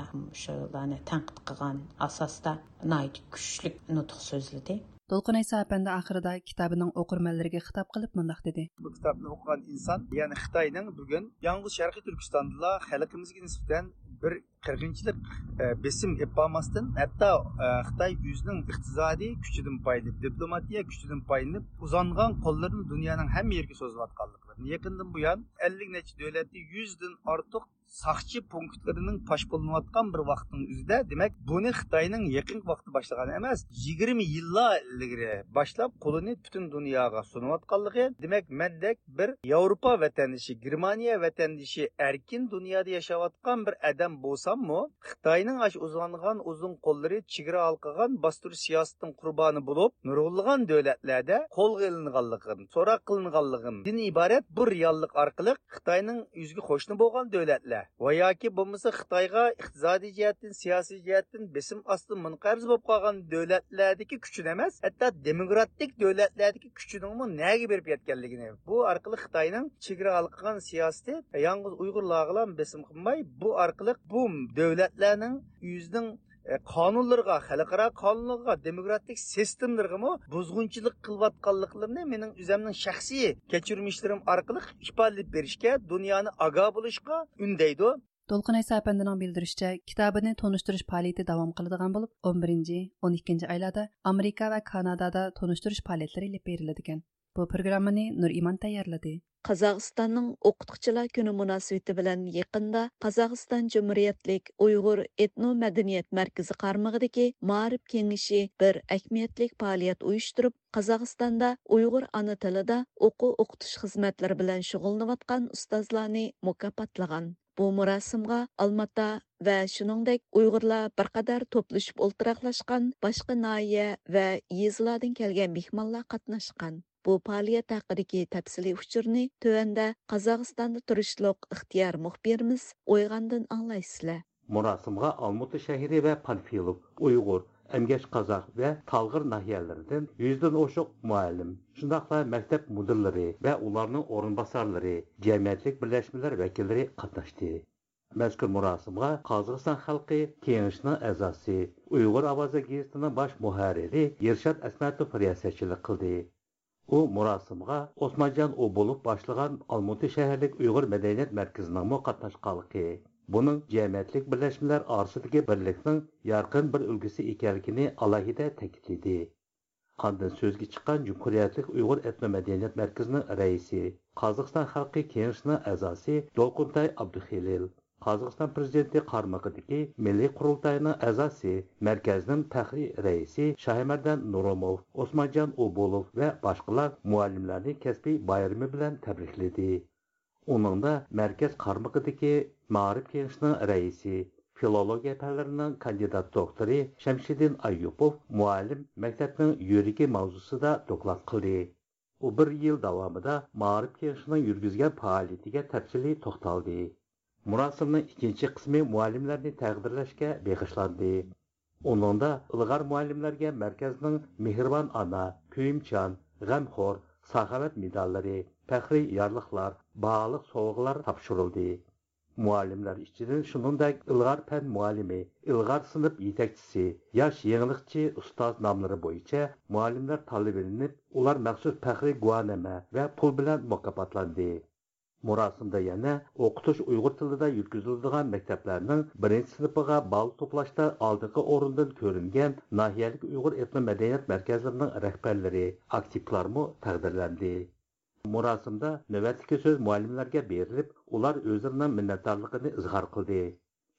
شۇلارنى تەنقىد قىلغان ئاساستا ناھايىتى كۈچلۈك نۇتۇق سۆزلىدى. دولقۇن ئەيسا ئەپەندى ئاخىرىدا كىتابىنىڭ ئوقۇرمەنلىرىگە خىتاب قىلىپ مۇنداق دېدى. بۇ كىتابنى ئوقۇغان ئىنسان، يەنى خىتاينىڭ بۈگۈن يالغۇز شەرقىي تۈركىستاندىلا خەلقىمىزگە نىسبەتەن بىر قىرغىنچىلىق، ئە، بېسىم ئېلىپ بارماستىن، ھەتتا، ئە، خىتاي ئۆزىنىڭ ئىقتىسادىي كۈچىدىن پايدىلىنىپ، دىپلوماتىيە كۈچىدىن پايدىلىنىپ، ئۇزانغان قوللىرىنى دۇنيانىڭ ھەممە يېرىگە سوزۇۋاتقانلىقلىرىنى، يېقىندىن بۇيان ئەللىك نەچچە دۆلەتتە يۈزدىن ئارتۇق ساقچى پونكىتلىرىنىڭ پاش قىلىنىۋاتقان بىر ۋاقىتنىڭ ئۆزىدە، دېمەك، بۇنى خىتاينىڭ يېقىنقى ۋاقىتتا باشلىغان ئەمەس، يىگىرمە يىللار ئىلگىرى باشلاپ قولىنى پۈتۈن دۇنياغا سۇنۇۋاتقانلىقى، دېمەك، مەندەك بىر ياۋروپا ۋەتەندىشى، گېرمانىيە ۋەتەندىشى، ئەركىن دۇنيادا ياشاۋاتقان بىر ئادەم بولساممۇ، خىتاينىڭ ئاشۇ ئۇزانغان ئۇزۇن قوللىرى چېگرا ھالقىغان باستۇرۇش سىياسىتىنىڭ قۇربانى بولۇپ، نۇرغۇنلىغان دۆلەتلەردە قولغا ئېلىنغانلىقىدىن، سوراق قىلىنغانلىقىدىن ئىبارەت بۇ رېئاللىق ئارقىلىق خىتاينىڭ ئۆزىگە قوشنا بولغان دۆلەتلەر ۋە ياكى بولمىسا خىتايغا ئىقتىسادىي جەھەتتىن، سىياسىي جەھەتتىن بېسىم ئاستىدا مۇنقەرز بولۇپ قالغان دۆلەتلەردىكى كۈچىنى ئەمەس، ھەتتا دېموكراتىك دۆلەتلەردىكى كۈچىنىڭمۇ نەگە بېرىپ يەتكەنلىكىنى، بۇ ئارقىلىق خىتاينىڭ چېگرا ھالقىغان سىياسىتى يالغۇز ئۇيغۇرلارغىلا بېسىم قىلماي، بۇ ئارقىلىق بۇ دۆلەتلەرنىڭ ئۆزىنىڭ، ئە، قانۇنلىرىغا، خەلقئارا قانۇنلىرىغا، دېموكراتىك سىستېمىلىرىغىمۇ بۇزغۇنچىلىق قىلىۋاتقانلىقلىرىنى مېنىڭ ئۆزەمنىڭ شەخسىي كەچۈرمىشلىرىم ئارقىلىق ئىپادىلەپ بېرىشكە، دۇنيانى ئاگاھ بولۇشقا ئۈندەيدۇ. دولقۇن ئەيسا ئەپەندىنىڭ بىلدۈرۈشىچە، كىتابىنى تونۇشتۇرۇش پائالىيىتى داۋام قىلىدىغان بولۇپ، ئون بىرىنچى، ئون ئىككىنچى ئايلاردا ئامېرىكا ۋە كانادادا تونۇشتۇرۇش پائالىيەتلىرى ئېلىپ بېرىلىدىكەن. بۇ پروگراممىنى نۇرئىمان تەييارلىدى. قازاقىستاننىڭ ئوقۇتقۇچىلار كۈنى مۇناسىۋىتى بىلەن يېقىندا قازاقىستان جۇمھۇرىيەتلىك ئۇيغۇر ئېتنو مەدەنىيەت مەركىزى قارمىقىدىكى مائارىپ كېڭىشى بىر ئەھمىيەتلىك پائالىيەت ئۇيۇشتۇرۇپ، قازاقىستاندا ئۇيغۇر ئانا تىلىدا ئوقۇ ئوقۇتۇش خىزمەتلىرى بىلەن شۇغۇللىنىۋاتقان ئۇستازلارنى مۇكاپاتلىغان. بۇ مۇراسىمغا ئالماتا ۋە شۇنىڭدەك ئۇيغۇرلار بىر قەدەر توپلىشىپ ئولتۇراقلاشقان باشقا ناھىيە ۋە يېزىلاردىن كەلگەن مېھمانلار قاتناشقان. بۇ پائالىيەت ھەققىدىكى تەپسىلىي ئۇچۇرنى تۆۋەندە قازاقىستاندا تۇرۇشلۇق ئىختىيار مۇخبىرىمىز ئويغاندىن ئاڭلايسىلەر. مۇراسىمغا ئالمۇتا شەھىرى ۋە پانفىلوف ئۇيغۇر ئەمگەش قازاق ۋە تالغىر ناھىيەلىرىدىن يۈزدىن ئوشۇق مۇئەللىم، شۇنداقلا مەكتەپ مۇدىرلىرى ۋە ئۇلارنىڭ ئورۇنباسارلىرى، جەمئىيەتچىلىك بىرلەشمىلەر ۋەكىللىرى قاتناشتى. مەزكۇر مۇراسىمغا قازاقىستان خەلقى كېڭىشىنىڭ ئەزاسى، ئۇيغۇر ئاۋازى گېزىتىنىڭ باش مۇھەررىرى ئىرشات ئەسمەتوف رىياسەتچىلىك قىلدى. ئۇ مۇراسىمغا ئوسمانجان ئوبۇلوف باشلىغان ئالمۇتى شەھەرلىك ئۇيغۇر مەدەنىيەت مەركىزىنىڭمۇ قاتناشقانلىقى، بۇنىڭ جەمئىيەتچىلىك بىرلەشمىلەر ئارىسىدىكى بىرلىكنىڭ يارقىن بىر ئۈلگىسى ئىكەنلىكىنى ئالاھىدە تەكىتلىدى. ئاندىن سۆزگە چىققان جۇمھۇرىيەتلىك ئۇيغۇر ئېتنو مەدەنىيەت مەركىزىنىڭ رەئىسى، قازاقىستان خەلقى كېڭىشىنىڭ ئەزاسى دولقۇنتاي ئابدۇخېلىل، قازاقىستان پىرېزىدېنتى قارمىقىدىكى مىللىي قۇرۇلتاينىڭ ئەزاسى، مەركەزنىڭ پەخرىي رەئىسى شاھىمەردان نۇرۇموف، ئوسمانجان ئوبۇلوف ۋە باشقىلار مۇئەللىملەرنى كەسپىي بايرىمى بىلەن تەبرىكلىدى. ئۇنىڭدا مەركەز قارمىقىدىكى مائارىپ كېڭىشىنىڭ رەئىسى، فىلولوگىيە پەنلىرىنىڭ كاندىدات دوكتورى شەمشىدىن ئايۇپوف مۇئەللىم مەكتەپنىڭ يۈرىكى ماۋزۇسىدا دوكلات قىلدى. ئۇ بىر يىل داۋامىدا مائارىپ كېڭىشىنىڭ يۈرگۈزگەن پائالىيىتىگە تەپسىلىي توختالدى. مۇراسىمنىڭ ئىككىنچى قىسمى مۇئەللىملەرنى تەقدىرلەشكە بېغىشلاندى. ئۇنىڭدا ئىلغار مۇئەللىملەرگە مەركەزنىڭ مېھرىبان ئانا، كۆيۈمچان، غەمخور، ساخاۋەت مېداللىرى، پەخرىي يارلىقلار، باھالىق سوۋغىلار تاپشۇرۇلدى. مۇئەللىملەر ئىچىدىن شۇنىڭدەك ئىلغار پەن مۇئەللىمى، ئىلغار سىنىپ يېتەكچىسى، ياش يېڭىلىقچى ئۇستاز ناملىرى بويىچە مۇئەللىملەر تاللىۋېلىنىپ، ئۇلار مەخسۇس پەخرىي گۇۋاھنامە ۋە پۇل بىلەن مۇكاپاتلاندى. مۇراسىمدا يەنە ئوقۇتۇش ئۇيغۇر تىلىدا يۈرگۈزۈلىدىغان مەكتەپلەرنىڭ بىرىنچى سىنىپىغا بال توپلاشتا ئالدىنقى ئورۇندىن كۆرۈنگەن ناھىيەلىك ئۇيغۇر ئېتنو مەدەنىيەت مەركەزلىرىنىڭ رەھبەرلىرى، ئاكتىپلارمۇ تەقدىرلەندى. مۇراسىمدا نۆۋەتتىكى سۆز مۇئەللىملەرگە بېرىلىپ، ئۇلار ئۆزلىرىنىڭ مىننەتدارلىقىنى ئىزھار قىلدى.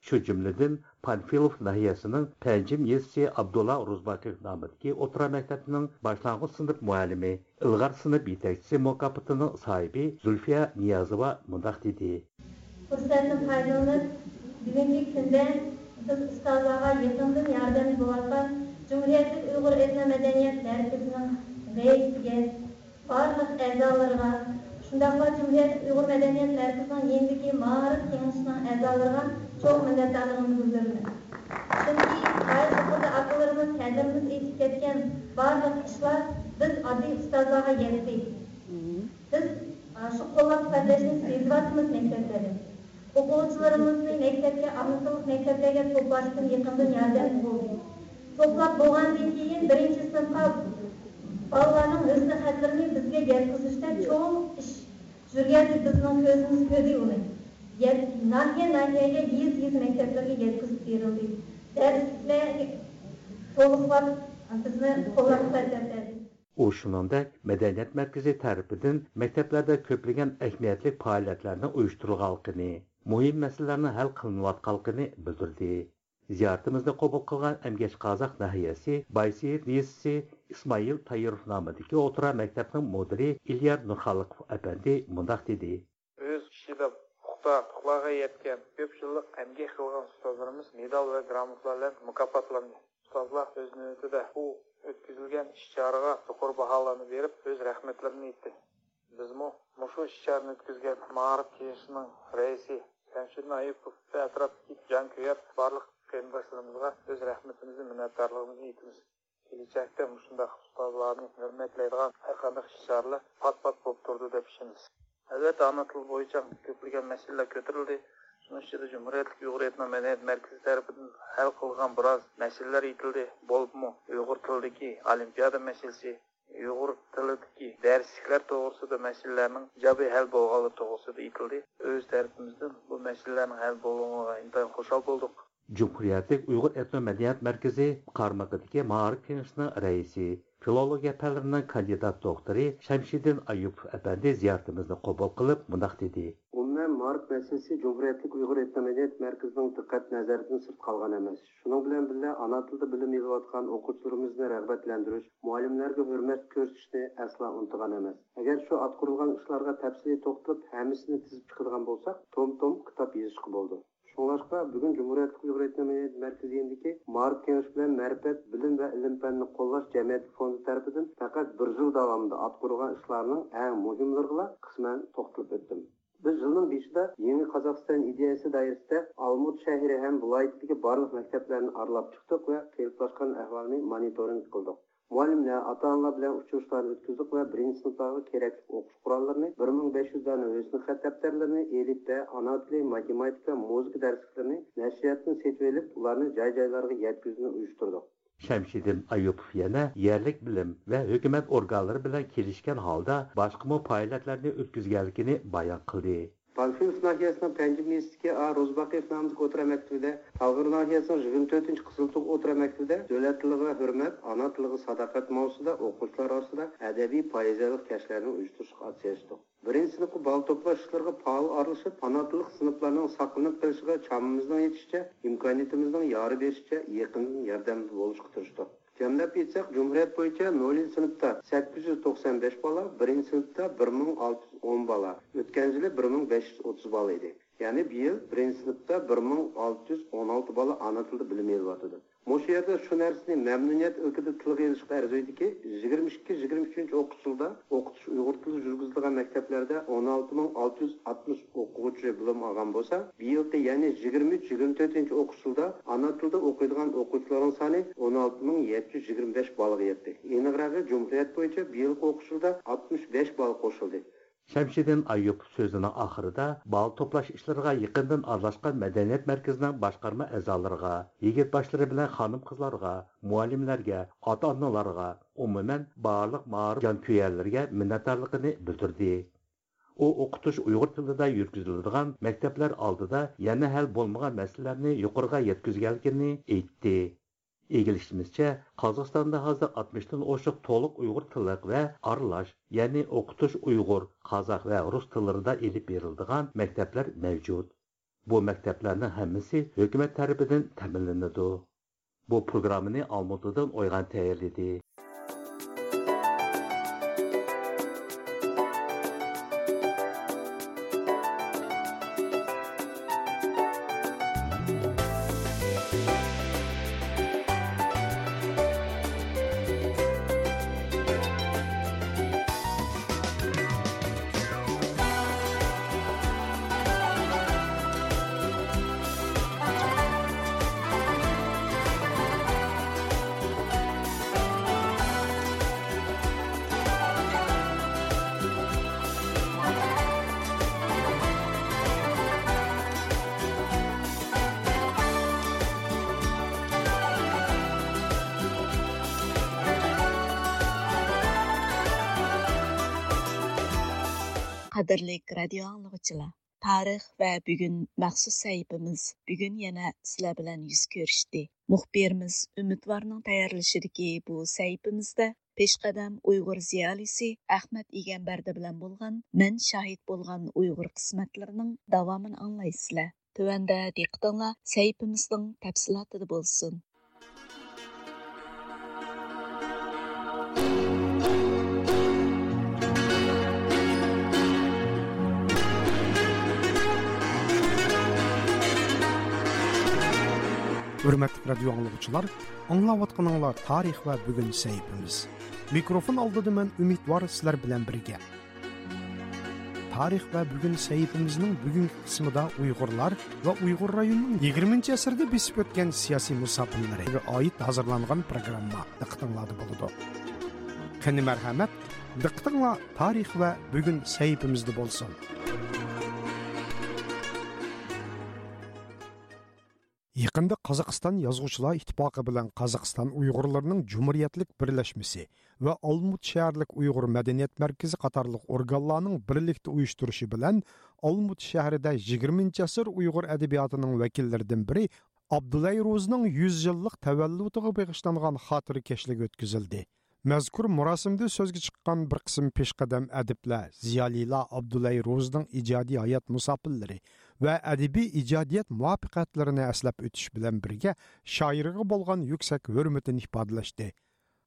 شۇ جۈملىدىن پانفىلوف ناھىيەسىنىڭ پەنجىم يېزىسى ئابدۇللا ئورۇزباقىف نامىدىكى ئوتتۇرا مەكتەپنىڭ باشلانغۇچ سىنىپ مۇئەللىمى، ئىلغار سىنىپ يېتەكچىسى مۇكاپاتىنىڭ ساھىبى زۇلفىيە نىيازوۋا مۇنداق دېدى. پۇرسەتتىن پايدىلىنىپ، بۈگۈنكى كۈندە بىز ئۇستازلارغا يېقىندىن ياردەمدە بولۇۋاتقان جۇمھۇرىيەتلىك ئۇيغۇر ئېتنو مەدەنىيەت مەركىزىنىڭ رەئىسىگە، بارلىق ئەزالىرىغا، شۇنداقلا جۇمھۇرىيەتلىك ئۇيغۇر مەدەنىيەت مەركىزىنىڭ يېنىدىكى مائارىپ كېڭىشىنىڭ ئەزالىرىغا چوڭ مىننەتدارلىقىمنى بىلدۈرىمەن. چۈنكى غايەت يۇقىرىدا ئاكىلىرىمىز، كادىرىمىز ئېيتىپ كەتكەن بارلىق ئىشلار بىز ئاددىي ئۇستازلارغا يەتتى. بىز، ئا، شۇ قوللاپ قۇۋۋەتلەشنى سېزىۋاتىمىز مەكتەپلەردە. ئوقۇغۇچىلىرىمىزنى مەكتەپكە، ئانا تىللىق مەكتەپلەرگە توپلاشتىن يېقىندىن ياردەم بولدى. توپلاپ بولغاندىن كېيىن بىرىنچى سىنىپقا بالىلارنىڭ ھۆسن خەتلىرىنى بىزگە يەتكۈزۈشتە چوڭ ئىش يۈرگەندە بىزنىڭ كۆزىمىز كۆردى ئۇنى. يەت-، ناھىيە، ناھىيەگە، يېزا، يېزا مەكتەپلىرىگە يەتكۈزۈپ بېرىلدى. دەرسلىكلەرگە تولۇقلاپ بىزنى قوللاپ قۇۋۋەتلەپ بەردى. ئۇ شۇنىڭدەك مەدەنىيەت مەركىزى تەرىپىدىن مەكتەپلەردە كۆپلىگەن ئەھمىيەتلىك پائالىيەتلەرنىڭ ئۇيۇشتۇرۇلغانلىقىنى، مۇھىم مەسىلىلەرنىڭ ھەل قىلىنىۋاتقانلىقىنى بىلدۈردى. زىيارىتىمىزنى قوبۇل قىلغان ئەمگەك قازاق ناھىيەسى بايسېيىت يېزىسى ئىسمائىل تايىروف نامىدىكى ئوتتۇرا مەكتەپنىڭ مۇدىرى ئىليار نۇرخالىقوف ئەپەندى مۇنداق دېدى. ئۆز ئىشىدا پۇختا ئۇتۇقلارغا يەتكەن، كۆپ يىللىق ئەمگەك قىلغان ئۇستازلىرىمىز مېدال ۋە گراموتىلار بىلەن مۇكاپاتلاندى. ئۇستازلار ئۆز نۆۋىتىدە بۇ ئۆتكۈزۈلگەن ئىش-چارىغا يۇقىرى باھالارنى بېرىپ، ئۆز رەھمەتلىرىنى ئېيتتى. بىزمۇ مۇشۇ ئىش-چارىنى ئۆتكۈزگەن مائارىپ كېڭىشىنىڭ رەئىسى شەمشىدىن ئايۇپوف ۋە ئەتراپتىكى جانكۆيەر بارلىق قېرىنداشلىرىمىزغا ئۆز رەھمىتىمىزنى، مىننەتدارلىقىمىزنى ئېيتىمىز. كېلەچەكتە مۇشۇنداق ئۇستازلارنى ھۆرمەتلەيدىغان ھەر قانداق ئىش-چارىلەر پات-پات بولۇپ تۇرىدۇ دەپ ئىشىنىمىز. ئەلۋەتتە، ئانا تىل بويىچە كۆپلىگەن مەسىلىلەر كۆتۈرۈلدى. شۇنىڭ ئىچىدە جۇمھۇرىيەتلىك ئۇيغۇر ئېتنو مەدەنىيەت مەركىزى تەرىپىدىن ھەل قىلغان بىراز مەسىلىلەر ئېيتىلدى. بولۇپمۇ ئۇيغۇر تىلىدىكى ئولىمپىيادا مەسىلىسى، ئۇيغۇر تىلىدىكى دەرسلىكلەر توغرىسىدا مەسىلىلەرنىڭ ئىجابىي ھەل بولغانلىقى توغرىسىدا ئېيتىلدى. ئۆز تەرىپىمىزدىن بۇ مەسىلىلەرنىڭ ھەل بولغىنىغا ئىنتايىن خۇشال بولدۇق. جۇمھۇرىيەتلىك ئۇيغۇر ئېتنو مەدەنىيەت مەركىزى قارمىقىدىكى مائارىپ كېڭىشىنىڭ رەئىسى، فىلولوگىيە پەنلىرىنىڭ كاندىدات دوكتورى شەمشىدىن ئايۇپوف ئەپەندى زىيارىتىمىزنى قوبۇل قىلىپ مۇنداق دېدى. ئومۇمەن، مائارىپ مەسىلىسى جۇمھۇرىيەتلىك ئۇيغۇر ئېتنو مەدەنىيەت مەركىزىنىڭ دىققەت نەزىرىدىن سىرت قالغان ئەمەس. شۇنىڭ بىلەن بىللە، ئانا تىلدا بىلىم ئېلىۋاتقان ئوقۇغۇچىلىرىمىزنى رىغبەتلەندۈرۈش، مۇئەللىملەرگە ھۆرمەت كۆرسىتىشنى ئەسلا ئۇنتۇغان ئەمەس. ئەگەر شۇ ئاتقۇرۇلغان ئىشلارغا تەپسىلىي توختىلىپ، ھەممىسىنى تىزىپ چىقىدىغان بولساق، توم-توم كىتاب يېزىشقا بولىدۇ. شۇڭلاشقا، بۈگۈن جۇمھۇرىيەتلىك ئۇيغۇر ئېتنو مەدەنىيەت مەركىزى يېنىدىكى مائارىپ كېڭىشى بىلەن مەرىپەت، بىلىم ۋە ئىلىم-پەننى قوللاش جەمئىيەتلىك فوندى تەرىپىدىن پەقەت بىر يىل داۋامىدا ئاتقۇرۇلغان ئىشلارنىڭ ئەڭ مۇھىملىرىغىلا قىسمەن توختىلىپ ئۆتتۈم. بىز يىلنىڭ بېشىدا يېڭى قازاقىستان ئىدىيەسى دائىرىسىدە ئالمۇت شەھىرى ھەم ۋىلايىتىدىكى بارلىق مەكتەپلەرنى ئارىلاپ چىقتۇق ۋە قېلىپلاشقان ئەھۋالنى مونىتورىنگ قىلدۇق. مۇئەللىملەر، ئاتا-ئانىلار بىلەن ئۇچرىشىشلارنى ئۆتكۈزدۇق ۋە بىرىنچى سىنىپلارغا كېرەكلىك ئوقۇش قوراللىرىنى، بىر مىڭ بەش يۈز دانە ھۆسنى خەت دەپتەرلىرىنى، ئېلىپبە، ئانا تىلى، ماتېماتىكا، مۇزىكا دەرسلىكلىرىنى نەشرىياتتىن سېتىۋېلىپ، ئۇلارنى جاي-جايلارغا يەتكۈزۈشنى ئۇيۇشتۇردۇق. شەمشىدىن ئايۇپوف يەنە يەرلىك بىلىم ۋە ھۆكۈمەت ئورگانلىرى بىلەن كېلىشكەن ھالدا باشقىمۇ پائالىيەتلەرنى ئۆتكۈزگەنلىكىنى بايان قىلدى. پانفىلوف ناھىيەسىنىڭ پەنجىم يېزىسىدىكى ئا روزباقىيېف نامىدىكى ئوتتۇرا مەكتىپىدە، تالغار ناھىيەسىنىڭ يىگىرمە تۆتىنچى قىزىلتۇغ ئوتتۇرا مەكتىپىدە دۆلەت تىلىغا ھۆرمەت، ئانا تىلىغا ساداقەت ماۋزۇسىدا ئوقۇغۇچىلار ئارىسىدا ئەدەبىي پوئېزىيەلىك كەچلەرنى ئۇيۇشتۇرۇشقا ئاتسىشتۇق. بىرىنچى سىنىپقا بالا توپلاش ئىشلىرىغا پائال ئارىلىشىپ، قاناتلىق سىنىپلارنىڭ ساقلىنىپ قېلىشىغا چامىمىزنىڭ يېتىشىچە، ئىمكانىيىتىمىزنىڭ يارى بېرىشىچە يېقىندىن ياردەمدە بولۇشقا تىرىشتۇق. جەملەپ ئېيتساق، جۇمھۇرىيەت بويىچە نولىنچى سىنىپتا سەككىز يۈز توقسان بەش بالا، بىرىنچى سىنىپتا بىر مىڭ ئالتە يۈز ئون بالا، ئۆتكەن يىلى بىر مىڭ بەش يۈز ئوتتۇز بالا ئىدى. يەنى بۇ يىل بىرىنچى سىنىپتا بىر مىڭ ئالتە يۈز ئون ئالتە بالا ئانا تىلدا بىلىم ئېلىۋاتىدۇ. مۇشۇ يەردە شۇ نەرسىنى مەمنۇنىيەت ئىلكىدە تىلغا ئېلىشقا ئەرزىيدۇكى، يىگىرمە ئىككى، يىگىرمە ئۈچىنچى ئوقۇش يىلىدا ئوقۇتۇش ئۇيغۇر تىلىدا يۈرگۈزۈلىدىغان مەكتەپلەردە ئون ئالتە مىڭ ئالتە يۈز ئاتمىش ئوقۇغۇچى بىلىم ئالغان بولسا، بۇ يىلقى، يەنى يىگىرمە ئۈچ، يىگىرمە تۆتىنچى ئوقۇش يىلىدا ئانا تىلدا ئوقۇيدىغان ئوقۇغۇچىلارنىڭ سانى ئون ئالتە مىڭ يەتتە يۈز يىگىرمە بەش بالىغا يەتتى. ئېنىقراقى، جۇمھۇرىيەت بويىچە بۇ يىلقى ئوقۇش يىلىدا ئاتمىش بەش بال قوشۇلدى. شەمشىدىن ئايۇپوف سۆزىنىڭ ئاخىرىدا بالا توپلاش ئىشلىرىغا يېقىندىن ئارىلاشقان مەدەنىيەت مەركىزىنىڭ باشقارما ئەزالىرىغا، يىگىت باشلىرى بىلەن خانىم-قىزلارغا، مۇئەللىملەرگە، ئاتا-ئانىلارغا، ئومۇمەن، بارلىق مائارىپ جانكۆيەرلىرىگە مىننەتدارلىقىنى بىلدۈردى. ئۇ ئوقۇتۇش ئۇيغۇر تىلىدا يۈرگۈزۈلىدىغان مەكتەپلەر ئالدىدا يەنە ھەل بولمىغان مەسىلىلەرنى يۇقىرىغا يەتكۈزگەنلىكىنى ئېيتتى. ئىگىلىشىمىزچە، قازاقىستاندا ھازىر ئاتمىشتىن ئوشۇق تولۇق ئۇيغۇر تىللىق ۋە ئارىلاش، يەنى ئوقۇتۇش ئۇيغۇر، قازاق ۋە رۇس تىللىرىدا ئېلىپ بېرىلىدىغان مەكتەپلەر مەۋجۇت. بۇ مەكتەپلەرنىڭ ھەممىسى ھۆكۈمەت تەرىپىدىن تەمىنلىنىدۇ. بۇ پروگراممىنى ئالمۇتىدىن ئويغان تەييارلىدى. قەدىرلىك رادىيو ئاڭلىغۇچىلار، تارىخ ۋە بۈگۈن مەخسۇس سەھىپىمىز بۈگۈن يەنە سىلەر بىلەن يۈز كۆرۈشتى. مۇخبىرىمىز ئۈمىدۋارنىڭ تەييارلىشىدىكى بۇ سەھىپىمىزدە پېشقەدەم ئۇيغۇر زىيالىيسى ئەخمەت ئىگەمبەردى بىلەن بولغان مەن شاھىت بولغان ئۇيغۇر قىسمەتلىرىنىڭ داۋامىنى ئاڭلايسىلەر. تۆۋەندە دىققىتىڭلار سەھىپىمىزنىڭ تەپسىلاتىدا بولسۇن. ھۆرمەتلىك رادىيو ئاڭلىغۇچىلار، ئاڭلاۋاتقىنىڭلار تارىخ ۋە بۈگۈن سەھىپىمىز. مىكروفون ئالدىدا مەن ئۈمىدۋار سىلەر بىلەن بىرگە. تارىخ ۋە بۈگۈن سەھىپىمىزنىڭ بۈگۈنكى قىسمىدا ئۇيغۇرلار ۋە ئۇيغۇر رايونىنىڭ يىگىرمىنچى ئەسىردە بېسىپ ئۆتكەن سىياسىي مۇساپىرلىرىغا ئائىت ھازىرلانغان پروگرامما دىققىتىڭلاردا بولىدۇ. قېنى مەرھەمەت، دىققىتىڭلار تارىخ ۋە بۈگۈن سەھىپىمىزدە بولسۇن. يېقىندا قازاقىستان يازغۇچىلار ئىتتىپاقى بىلەن قازاقىستان ئۇيغۇرلىرىنىڭ جۇمھۇرىيەتلىك بىرلەشمىسى ۋە ئالمۇت شەھەرلىك ئۇيغۇر مەدەنىيەت مەركىزى قاتارلىق ئورگانلارنىڭ بىرلىكتە ئۇيۇشتۇرۇشى بىلەن ئالمۇت شەھىرىدە يىگىرمىنچى ئەسىر ئۇيغۇر ئەدەبىياتىنىڭ ۋەكىللىرىدىن بىرى ئابدۇلەي روزىنىڭ يۈز يىللىق تەۋەللۇتىغا بېغىشلانغان خاتىرە كەچلىكى ئۆتكۈزۈلدى. مەزكۇر مۇراسىمدا سۆزگە چىققان بىر قىسىم پېشقەدەم ئەدىبلەر، زىيالىيلار ئابدۇلەي روزىنىڭ ئىجادىي ھايات مۇساپىرلىرى ۋە ئەدەبىي ئىجادىيەت مۇۋەپپەقىيەتلىرىنى ئەسلەپ ئۆتۈش بىلەن بىرگە، شائىرغا بولغان يۈكسەك ھۆرمىتىنى ئىپادىلەشتى.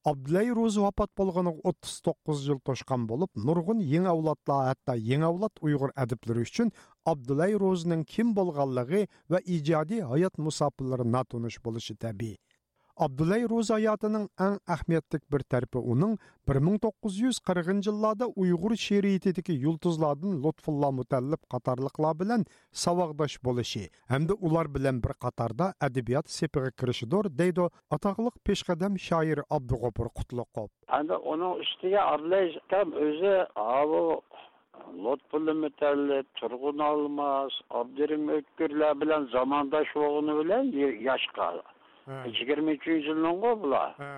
ئابدۇلەي روزى ۋاپات بولغىنىغا ئوتتۇز توققۇز يىل توشقان بولۇپ، نۇرغۇن يېڭى ئەۋلادلار، ھەتتا يېڭى ئەۋلاد ئۇيغۇر ئەدىبلىرى ئۈچۈن ئابدۇلەي روزىنىڭ كىم بولغانلىقى ۋە ئىجادىي ھايات مۇساپىرلىرى ناتونۇش بولۇشى تەبىئىي. ئابدۇللاي روزى ھاياتىنىڭ ئەڭ ئەھمىيەتلىك بىر تەرىپى ئۇنىڭ بىر مىڭ توققۇز يۈز قىرىقىنچى يىللاردا ئۇيغۇر شېئىرىيىتىدىكى يۇلتۇزلاردىن لۇتپۇللا مۇتەللىپ قاتارلىقلار بىلەن ساۋاقداش بولۇشى ھەمدە ئۇلار بىلەن بىر قاتاردا ئەدەبىيات سېپىغا كىرىشىدۇر، دەيدۇ ئاتاقلىق پېشقەدەم شائىر ئابدۇغوپۇر قۇتلۇقوف. ئەمدى ئۇنىڭ ئۈستىگە ئابدۇللاي ئاكام ئۆزى ئاۋۇ لۇتپۇللا مۇتەللىپ، تۇرغۇن ئالماس، ئابدۇرېھىم ئۆتكۈرلەر بىلەن زامانداش بولغىنى بىلەن ي-، ياشقا. ھە. يىگىرمە ئۈچىنچى يىلنىڭغۇ بۇلار. ھە.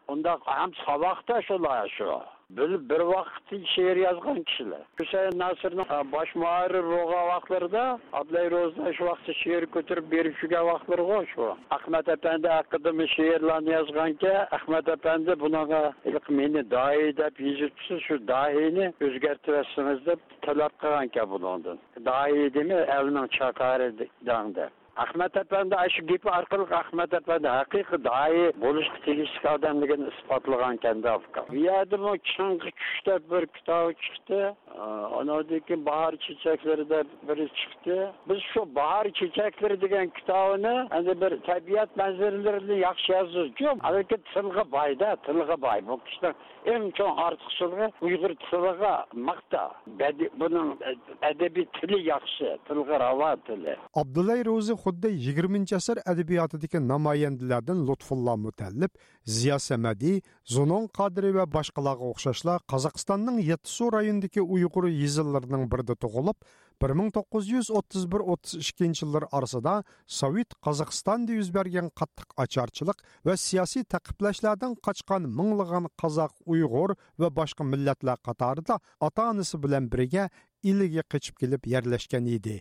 ئۇنداق ھەم ساۋاقداش ئۇلار شۇ. بىر، بىر ۋاقىتتا شېئىر يازغان كىشىلەر. ھۈسەيىن ناسىرنىڭ، ئە، باش مۇھەررىر بولغان ۋاقىتلىرىدا ئابدۇللاي روزىنىڭ شۇ ۋاقىتتا شېئىر كۆتۈرۈپ بېرىپ يۈرگەن ۋاقىتلىرىغۇ شۇ. ئەخمەت ئەپەندى ھەققىدىمۇ شېئىرلارنى يازغانكەن، ئەخمەت ئەپەندى بۇنىڭغا ھېلىقى مېنى داھىي دەپ يېزىپسىز، شۇ داھىينى ئۆزگەرتىۋەتسىڭىز دەپ تەلەپ قىلغانكەن بۇنىڭدىن. داھىي دېمەي، ئەلنىڭ چاكارى دەڭ دەپ. ئەخمەت ئەپەندى ئاشۇ گېپى ئارقىلىق ئەخمەت ئەپەندى ھەقىقىي داھىي بولۇشقا تېگىشلىك ئادەملىكىنى ئىسپاتلىغانكەن-دە، ئۇكام. بۇ يەردىمۇ چىڭغا چۈش دەپ بىر كىتابى چىقتى. ئانىڭدىن كېيىن باھار چېچەكلىرى دەپ بىرى چىقتى. بىز شۇ باھار چېچەكلىرى دېگەن كىتابىنى ئەمدى بىر تەبىئەت مەنزىرىلىرىنى ياخشى يازىدۇ. لېكىن تىلغا باي-دە، تىلغا باي. بۇ كىشىنىڭ ئەڭ چوڭ ئارتۇقچىلىقى ئۇيغۇر تىلىغا ماختاش. بەدىئىي، بۇنىڭ ئەدەبىي تىلى ياخشى، تىلغا راۋان تىلى. ئابدۇللاي روزى خۇددى يىگىرمىنچى ئەسىر ئەدەبىياتىدىكى نامايەندىلەردىن لۇتپۇللا مۇتەللىپ، زىيا سەمەدى، زۇنۇن قادىرى ۋە باشقىلارغا ئوخشاشلا قازاقىستاننىڭ يەتتىسۇ رايونىدىكى ئۇيغۇر يېزىلىرىنىڭ بىرىدە تۇغۇلۇپ، بىر مىڭ توققۇز يۈز ئوتتۇز بىر ئوتتۇز ئىككىنچى يىللار ئارىسىدا سوۋېت قازاقىستاندا يۈز بەرگەن قاتتىق ئاچارچىلىق ۋە سىياسىي تەقىبلەشلەردىن قاچقان مىڭلىغان قازاق، ئۇيغۇر ۋە باشقا مىللەتلەر قاتارىدا ئاتا-ئانىسى بىلەن بىرگە ئىلىگە قېچىپ كېلىپ يەرلەشكەن ئىدى.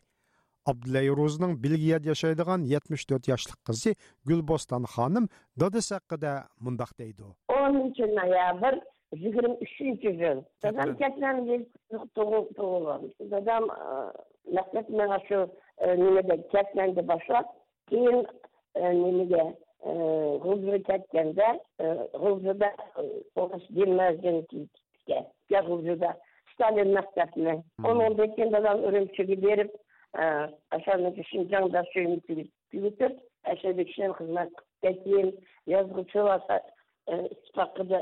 ئابدۇللاي روزىنىڭ بېلگىيەدە ياشايدىغان يەتمىش تۆت ياشلىق قىزى گۈلبوستان خانىم دادىسى ھەققىدە مۇنداق دەيدۇ. ئونىنچى نويابىر يىگىرمە ئۈچىنچى يىل. دادام كەتمەن. كەتمەندە تۇغۇل-، تۇغۇلغان. دادام، ئە، مەكتەپ ماڭا شۇ، ئە، نېمىدە، كەتمەندە باشلاپ، كېيىن، ئە، نېمىگە، ئە، غۇلجىغا كەتكەندە، ئە، غۇلجىدا، ئە، ئورۇس گىمنازىيىنى پۈتكەن. يا غۇلجىدا ستالىن مەكتەپنى. مم. ئۇنىڭدىن كېيىن دادام ئۈرۈمچىگە بېرىپ، ئە، ئاشۇندىكى شىنجاڭ داشۆيىنى تۈگىتىپ، ئەشەدە كىشىلەر خىزمەت قىلىپ كېيىن يازغۇچى ۋاسا-، ئە، ئىتتىپاقىدا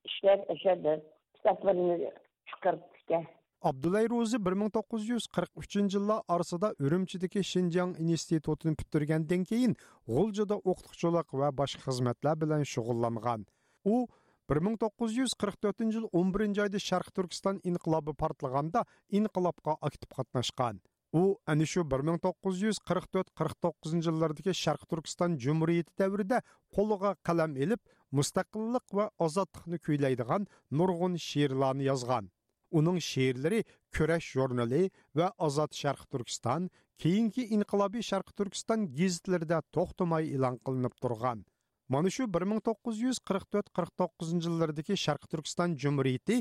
ئىشلەپ، ئەشەدە كىتابلىرىنى چىقىرىپتىكەن. ئابدۇللاي روزى بىر مىڭ توققۇز يۈز قىرىق ئۈچىنچى يىللار ئارىسىدا ئۈرۈمچىدىكى شىنجاڭ ئىنستىتۇتىنى پۈتتۈرگەندىن كېيىن، غۇلجىدا ئوقۇتقۇچىلىق ۋە باشقا خىزمەتلەر بىلەن شۇغۇللانغان. ئۇ بىر مىڭ توققۇز يۈز قىرىق تۆتىنچى يىل ئون بىرىنچى ئايدا شەرقىي تۈركىستان ئىنقىلابى پارتلىغاندا ئىنقىلابقا ئاكتىپ قاتناشقان. ئۇ ئەنە شۇ بىر مىڭ توققۇز يۈز قىرىق تۆت قىرىق توققۇزىنچى يىللاردىكى شەرقىي تۈركىستان جۇمھۇرىيىتى دەۋرىدە قولىغا قەلەم ئېلىپ، مۇستەقىللىق ۋە ئازادلىقنى كۈيلەيدىغان نۇرغۇن شېئىرلارنى يازغان. ئۇنىڭ شېئىرلىرى كۈرەش ژۇرنىلى ۋە ئازاد شەرقىي تۈركىستان، كېيىنكى ئىنقىلابىي شەرقىي تۈركىستان گېزىتلىرىدە توختىماي ئېلان قىلىنىپ تۇرغان. مانا شۇ بىر مىڭ توققۇز يۈز قىرىق تۆت قىرىق توققۇزىنچى يىللىرىدىكى شەرقىي تۈركىستان جۇمھۇرىيىتى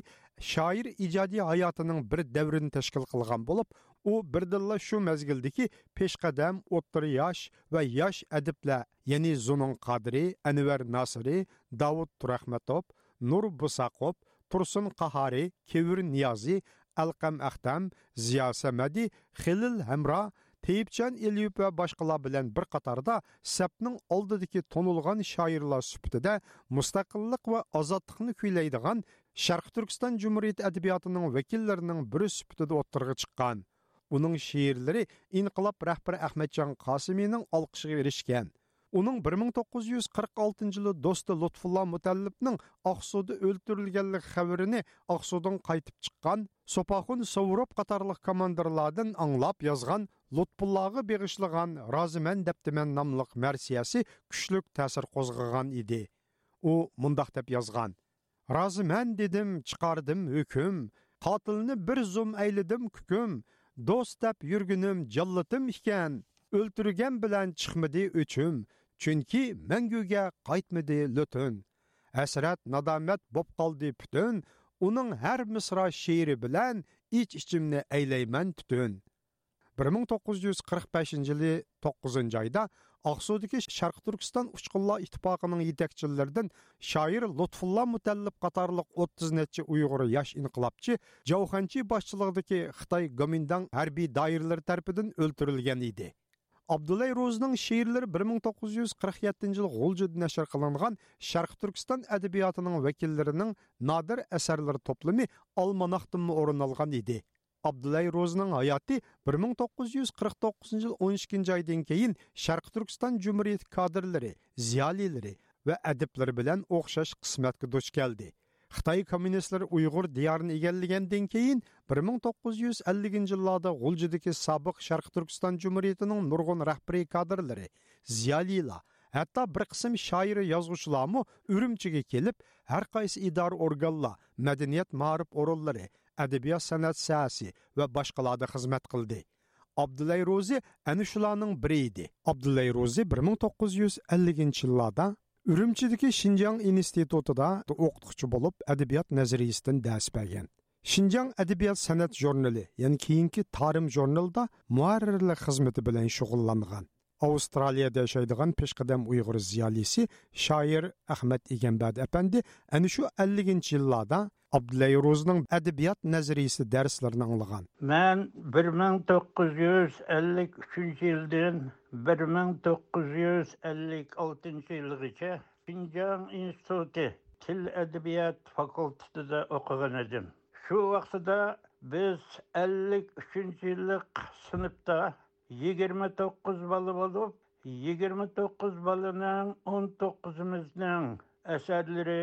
شائىر ئىجادىي ھاياتىنىڭ بىر دەۋرىنى تەشكىل قىلغان بولۇپ، ئۇ بىردىنلا شۇ مەزگىلدىكى پېشقەدەم، ئوتتۇرا ياش ۋە ياش ئەدىبلەر، يەنى زۇنۇن قادىرى، ئەنۋەر ناسىرى، داۋۇت تۇرەخمەتوف، نۇر بۇساقوف، تۇرسۇن قاھارى، كېۋىر نىيازى، ئەلقەم ئەختەم، زىيا سەمەدى، خېلىل ھەمرا، تېيىپجان ئېلىيېۋ ۋە باشقىلار بىلەن بىر قاتاردا سەپنىڭ ئالدىدىكى تونۇلغان شائىرلار سۈپىتىدە مۇستەقىللىق ۋە ئازادلىقنى كۈيلەيدىغان شەرقىي تۈركىستان جۇمھۇرىيىتى ئەدەبىياتىنىڭ ۋەكىللىرىنىڭ بىرى سۈپىتىدە ئوتتۇرىغا چىققان. ئۇنىڭ شېئىرلىرى ئىنقىلاب رەھبىرى ئەخمەتجان قاسىمىنىڭ ئالقىشىغا ئېرىشكەن. ئۇنىڭ بىر مىڭ توققۇز يۈز قىرىق ئالتىنچى يىلى دوستى لۇتپۇللا مۇتەللىپنىڭ ئاقسۇدا ئۆلتۈرۈلگەنلىكى خەۋىرىنى ئاقسۇدىن قايتىپ چىققان سوپاخۇن سوۋۇروف قاتارلىق كوماندىرلاردىن ئاڭلاپ يازغان لۇتپۇللاغا بېغىشلىغان رازىمەن دەپتىمەن ناملىق مەرسىيەسى كۈچلۈك تەسىر قوزغىغان ئىدى. ئۇ مۇنداق دەپ يازغان: رازىمەن دېدىم، چىقاردىم ھۆكۈم، قاتىلنى بىر زۇم ئەيلىدىم كۈكۈم، دوست دەپ يۈرگىنىم جاللىتىم ئىكەن، ئۆلتۈرگەن بىلەن چىقمىدى ئۆچۈم، چۈنكى مەڭگۈگە قايتمىدى لۆتۈن. ھەسرەت، نادامەت بوپ قالدى پۈتۈن، ئۇنىڭ ھەر مىسرا شېئىرى بىلەن ئىچ-ئىچىمنى ئەيلەيمەن تۈتۈن. بىر مىڭ توققۇز يۈز قىرىق بەشىنچى يىلى توققۇزىنچى ئايدا ئاقسۇدىكى شەرقىي تۈركىستان ئۇچقۇنلار ئىتتىپاقىنىڭ يېتەكچىلىرىدىن شائىر لۇتپۇللا مۇتەللىپ قاتارلىق ئوتتۇز نەچچە ئۇيغۇر ياش ئىنقىلابچى جاۋ خەنچى باشچىلىقىدىكى خىتاي گومىنداڭ ھەربىي دائىرىلىرى تەرىپىدىن ئۆلتۈرۈلگەن ئىدى. ئابدۇللاي روزىنىڭ شېئىرلىرى بىر مىڭ توققۇز يۈز قىرىق يەتتىنچى يىل غۇلجىدا نەشر قىلىنغان شەرقىي تۈركىستان ئەدەبىياتىنىڭ ۋەكىللىرىنىڭ نادىر ئەسەرلىرى توپلىمى ئالماناختىنمۇ ئورۇن ئالغان ئىدى. ئابدۇللاي روزىنىڭ ھاياتى بىر مىڭ توققۇز يۈز قىرىق توققۇزىنچى يىل ئون ئىككىنچى ئايدىن كېيىن شەرقىي تۈركىستان جۇمھۇرىيىتى كادىرلىرى، زىيالىيلىرى ۋە ئەدىبلىرى بىلەن ئوخشاش قىسمەتكە دۇچ كەلدى. خىتاي كوممۇنىستلىرى ئۇيغۇر دىيارىنى ئىگىلىگەندىن كېيىن، بىر مىڭ توققۇز يۈز ئەللىكىنچى يىللاردا غۇلجىدىكى سابىق شەرقىي تۈركىستان جۇمھۇرىيىتىنىڭ نۇرغۇن رەھبىرىي كادىرلىرى، زىيالىيلار، ھەتتا بىر قىسىم شائىر، يازغۇچىلارمۇ ئۈرۈمچىگە كېلىپ، ھەر قايسى ئىدارە ئورگانلار، مەدەنىيەت، مائارىپ ئورۇنلىرى، ئەدەبىيات سەنئەت ساھەسى ۋە باشقىلاردا خىزمەت قىلدى. ئابدۇللاي روزى ئەنە شۇلارنىڭ بىرى ئىدى. ئابدۇللاي روزى بىر مىڭ توققۇز يۈز ئەللىكىنچى يىللاردا ئۈرۈمچىدىكى شىنجاڭ ئىنستىتۇتىدا ئوقۇتقۇچى بولۇپ، ئەدەبىيات نەزەرىيىسىدىن دەرس بەرگەن. شىنجاڭ ئەدەبىيات سەنئەت ژۇرنىلى، يەنى كېيىنكى تارىم ژۇرنىلىدا مۇھەررىرلىك خىزمىتى بىلەن شۇغۇللانغان. ئاۋسترالىيەدە ياشايدىغان پېشقەدەم ئۇيغۇر زىيالىيسى، شائىر ئەخمەت ئىگەمبەردى ئەپەندى ئەنە شۇ ئەللىكىنچى يىللاردا ئابدۇللاي روزىنىڭ ئەدەبىيات نەزەرىيىسى دەرسلىرىنى ئاڭلىغان. مەن بىر مىڭ توققۇز يۈز ئەللىك ئۈچىنچى يىلدىن بىر مىڭ توققۇز يۈز ئەللىك ئالتىنچى يىلغىچە شىنجاڭ ئىنستىتۇتى تىل ئەدەبىيات فاكۇلتېتىدا ئوقۇغان ئىدىم. شۇ ۋاقتىدا بىز ئەللىك ئۈچىنچى يىللىق سىنىپتا يىگىرمە توققۇز بالا بولۇپ، يىگىرمە توققۇز بالىنىڭ ئون توققۇزىمىزنىڭ ئەسەرلىرى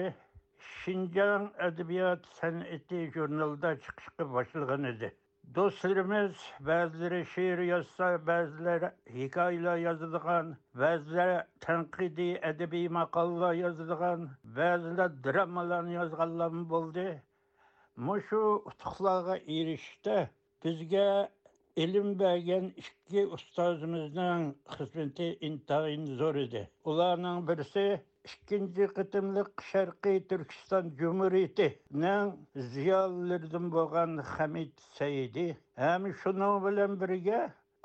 شىنجاڭ ئەدەبىيات سەنئىتى ژۇرنىلىدا چىقىشقا باشلىغان ئىدى. دوستلىرىمىز بەزىلىرى شېئىر يازسا، بەزىلەر ھېكايىلەر يازىدىغان، بەزىلەر تەنقىدىي ئەدەبىي ماقالىلەر يازىدىغان، بەزىلەر درامالارنى يازغانلارمۇ بولدى. مۇشۇ ئۇتۇقلارغا ئېرىشىشتە بىزگە ئىلىم بەرگەن ئىككى ئۇستازىمىزنىڭ خىزمىتى ئىنتايىن زور ئىدى. ئۇلارنىڭ بىرسى ئىككىنچى قېتىملىق شەرقىي تۈركىستان جۇمھۇرىيىتىنىڭ زىيالىيلىرىدىن بولغان خەمىت سەئىدى ھەم شۇنىڭ بىلەن بىرگە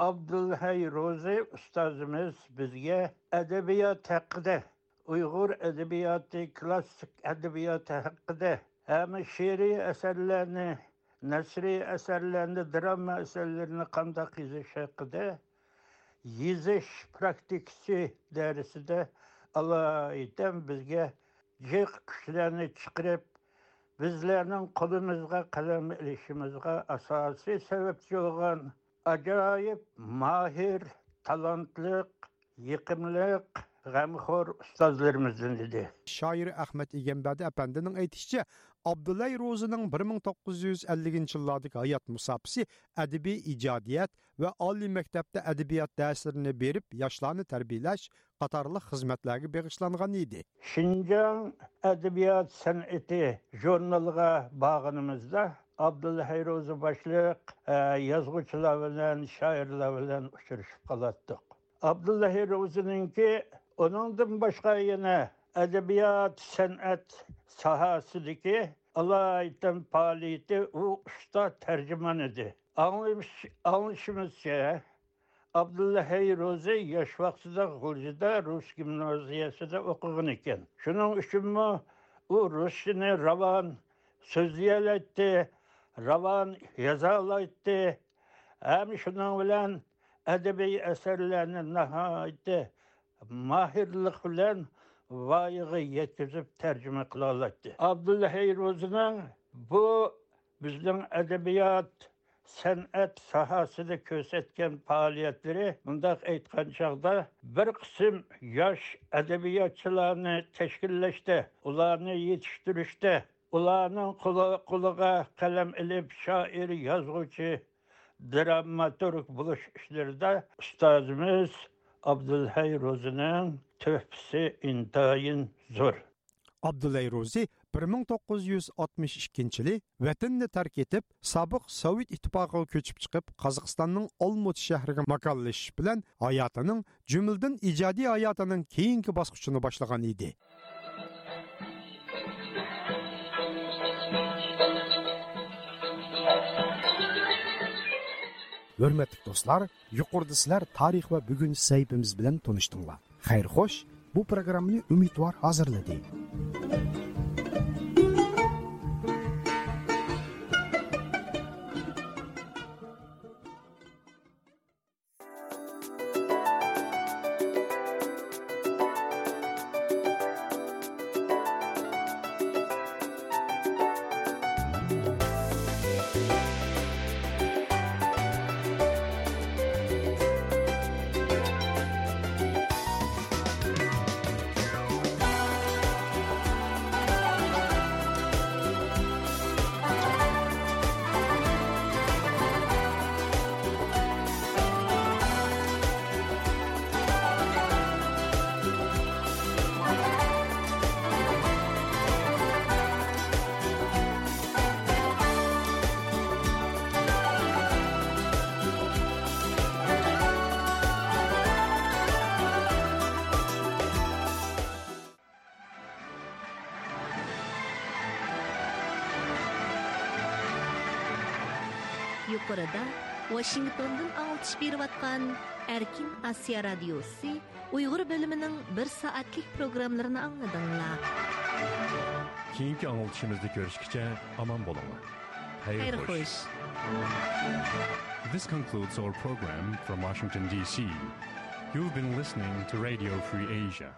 ئابدۇلھەي روزى ئۇستازىمىز بىزگە ئەدەبىيات ھەققىدە، ئۇيغۇر ئەدەبىياتى، كلاسسىك ئەدەبىياتى ھەققىدە ھەم شېئىرىي ئەسەرلەرنى، نەسرىي ئەسەرلەرنى، دىراما ئەسەرلىرىنى قانداق يېزىش ھەققىدە يېزىش پراكتىكىسى دەرسىدە ئالايىتەن بىزگە جىق كۈچلەرنى چىقىرىپ، بىزلەرنىڭ قولىمىزغا قەلەم ئېلىشىمىزغا ئاساسىي سەۋەبچى بولغان ئاجايىپ ماھىر، تالانتلىق، يېقىملىق، غەمخور ئۇستازلىرىمىزدىن ئىدى. شائىر ئەخمەت ئىگەمبەردى ئەپەندىنىڭ ئېيتىشىچە، ئابدۇللاي روزىنىڭ بىر مىڭ توققۇز يۈز ئەللىكىنچى يىللاردىكى ھايات مۇساپىسى ئەدەبىي ئىجادىيەت ۋە ئالىي مەكتەپتە ئەدەبىيات دەرسلىرىنى بېرىپ، ياشلارنى تەربىيەلەش قاتارلىق خىزمەتلەرگە بېغىشلانغان ئىدى. شىنجاڭ ئەدەبىيات سەنئىتى ژۇرنىلىغا بارغىنىمىزدا، ئابدۇللاھەي روزى باشلىق، ئە، يازغۇچىلار بىلەن، شائىرلار بىلەن ئۇچرىشىپ قالاتتۇق. ئابدۇللاھەي روزىنىڭكى ئۇنىڭدىن باشقا يەنە ئەدەبىيات، سەنئەت ساھەسىدىكى ئالايىتەن پائالىيىتى، ئۇ ئۇستا تەرجىمان ئىدى. ئاڭلىمىش-، ئاڭلىشىمىزچە، ئابدۇللاھەي روزى ياش ۋاقتىدا غۇلجىدا رۇس گىمنازىيەسىدە ئوقۇغان ئىكەن. شۇنىڭ ئۈچۈنمۇ ئۇ رۇسچىنى راۋان سۆزلىيەلەيتتى، راۋان يازالايتتى. ھەم شۇنىڭ بىلەن ئەدەبىي ئەسەرلەرنى ناھايىتى ماھىرلىق بىلەن ۋايىغا يەتكۈزۈپ تەرجىمە قىلالايتتى. ئابدۇللاھەي روزىنىڭ بۇ بىزنىڭ ئەدەبىيات، سەنئەت ساھەسىدە كۆرسەتكەن پائالىيەتلىرى، مۇنداق ئېيتقان چاغدا، بىر قىسىم ياش ئەدەبىياتچىلارنى تەشكىللەشتە، ئۇلارنى يېتىشتۈرۈشتە، ئۇلارنىڭ قولى-، قولىغا قەلەم ئېلىپ، شائىر، يازغۇچى، دراماتورگ بولۇش ئىشلىرىدا ئۇستازىمىز ئابدۇلھەي روزىنىڭ تۆھپىسى ئىنتايىن زور. ئابدۇلھەي روزى بىر مىڭ توققۇز يۈز ئاتمىش ئىككىنچى يىلى ۋەتىنىنى تەرك ئېتىپ، سابىق سوۋېت ئىتتىپاقىغا كۆچۈپ چىقىپ، قازاقىستاننىڭ ئالمۇتى شەھىرىگە ماكانلىشىش بىلەن ھاياتىنىڭ، جۈملىدىن ئىجادىي ھاياتىنىڭ كېيىنكى باسقۇچىنى باشلىغان ئىدى. ھۆرمەتلىك دوستلار، يۇقىرىدا سىلەر تارىخ ۋە بۈگۈن سەھىپىمىز بىلەن تونۇشتۇڭلار. خەير خوش، بۇ پروگراممىنى ئۈمىدۋار ھازىرلىدى. يۇقىرىدا ۋاشىنگتوندىن ئاڭلىتىش بېرىۋاتقان ئەركىن ئاسىيا رادىيوسى ئۇيغۇر بۆلۈمىنىڭ بىر سائەتلىك پروگراممىلىرىنى ئاڭلىدىڭلار. كېيىنكى ئاڭلىتىشىمىزدا كۆرۈشكىچە ئامان بولۇڭلار. خەير خوش. This concludes our program from Washington, D C. You've been listening to Radio Free Asia.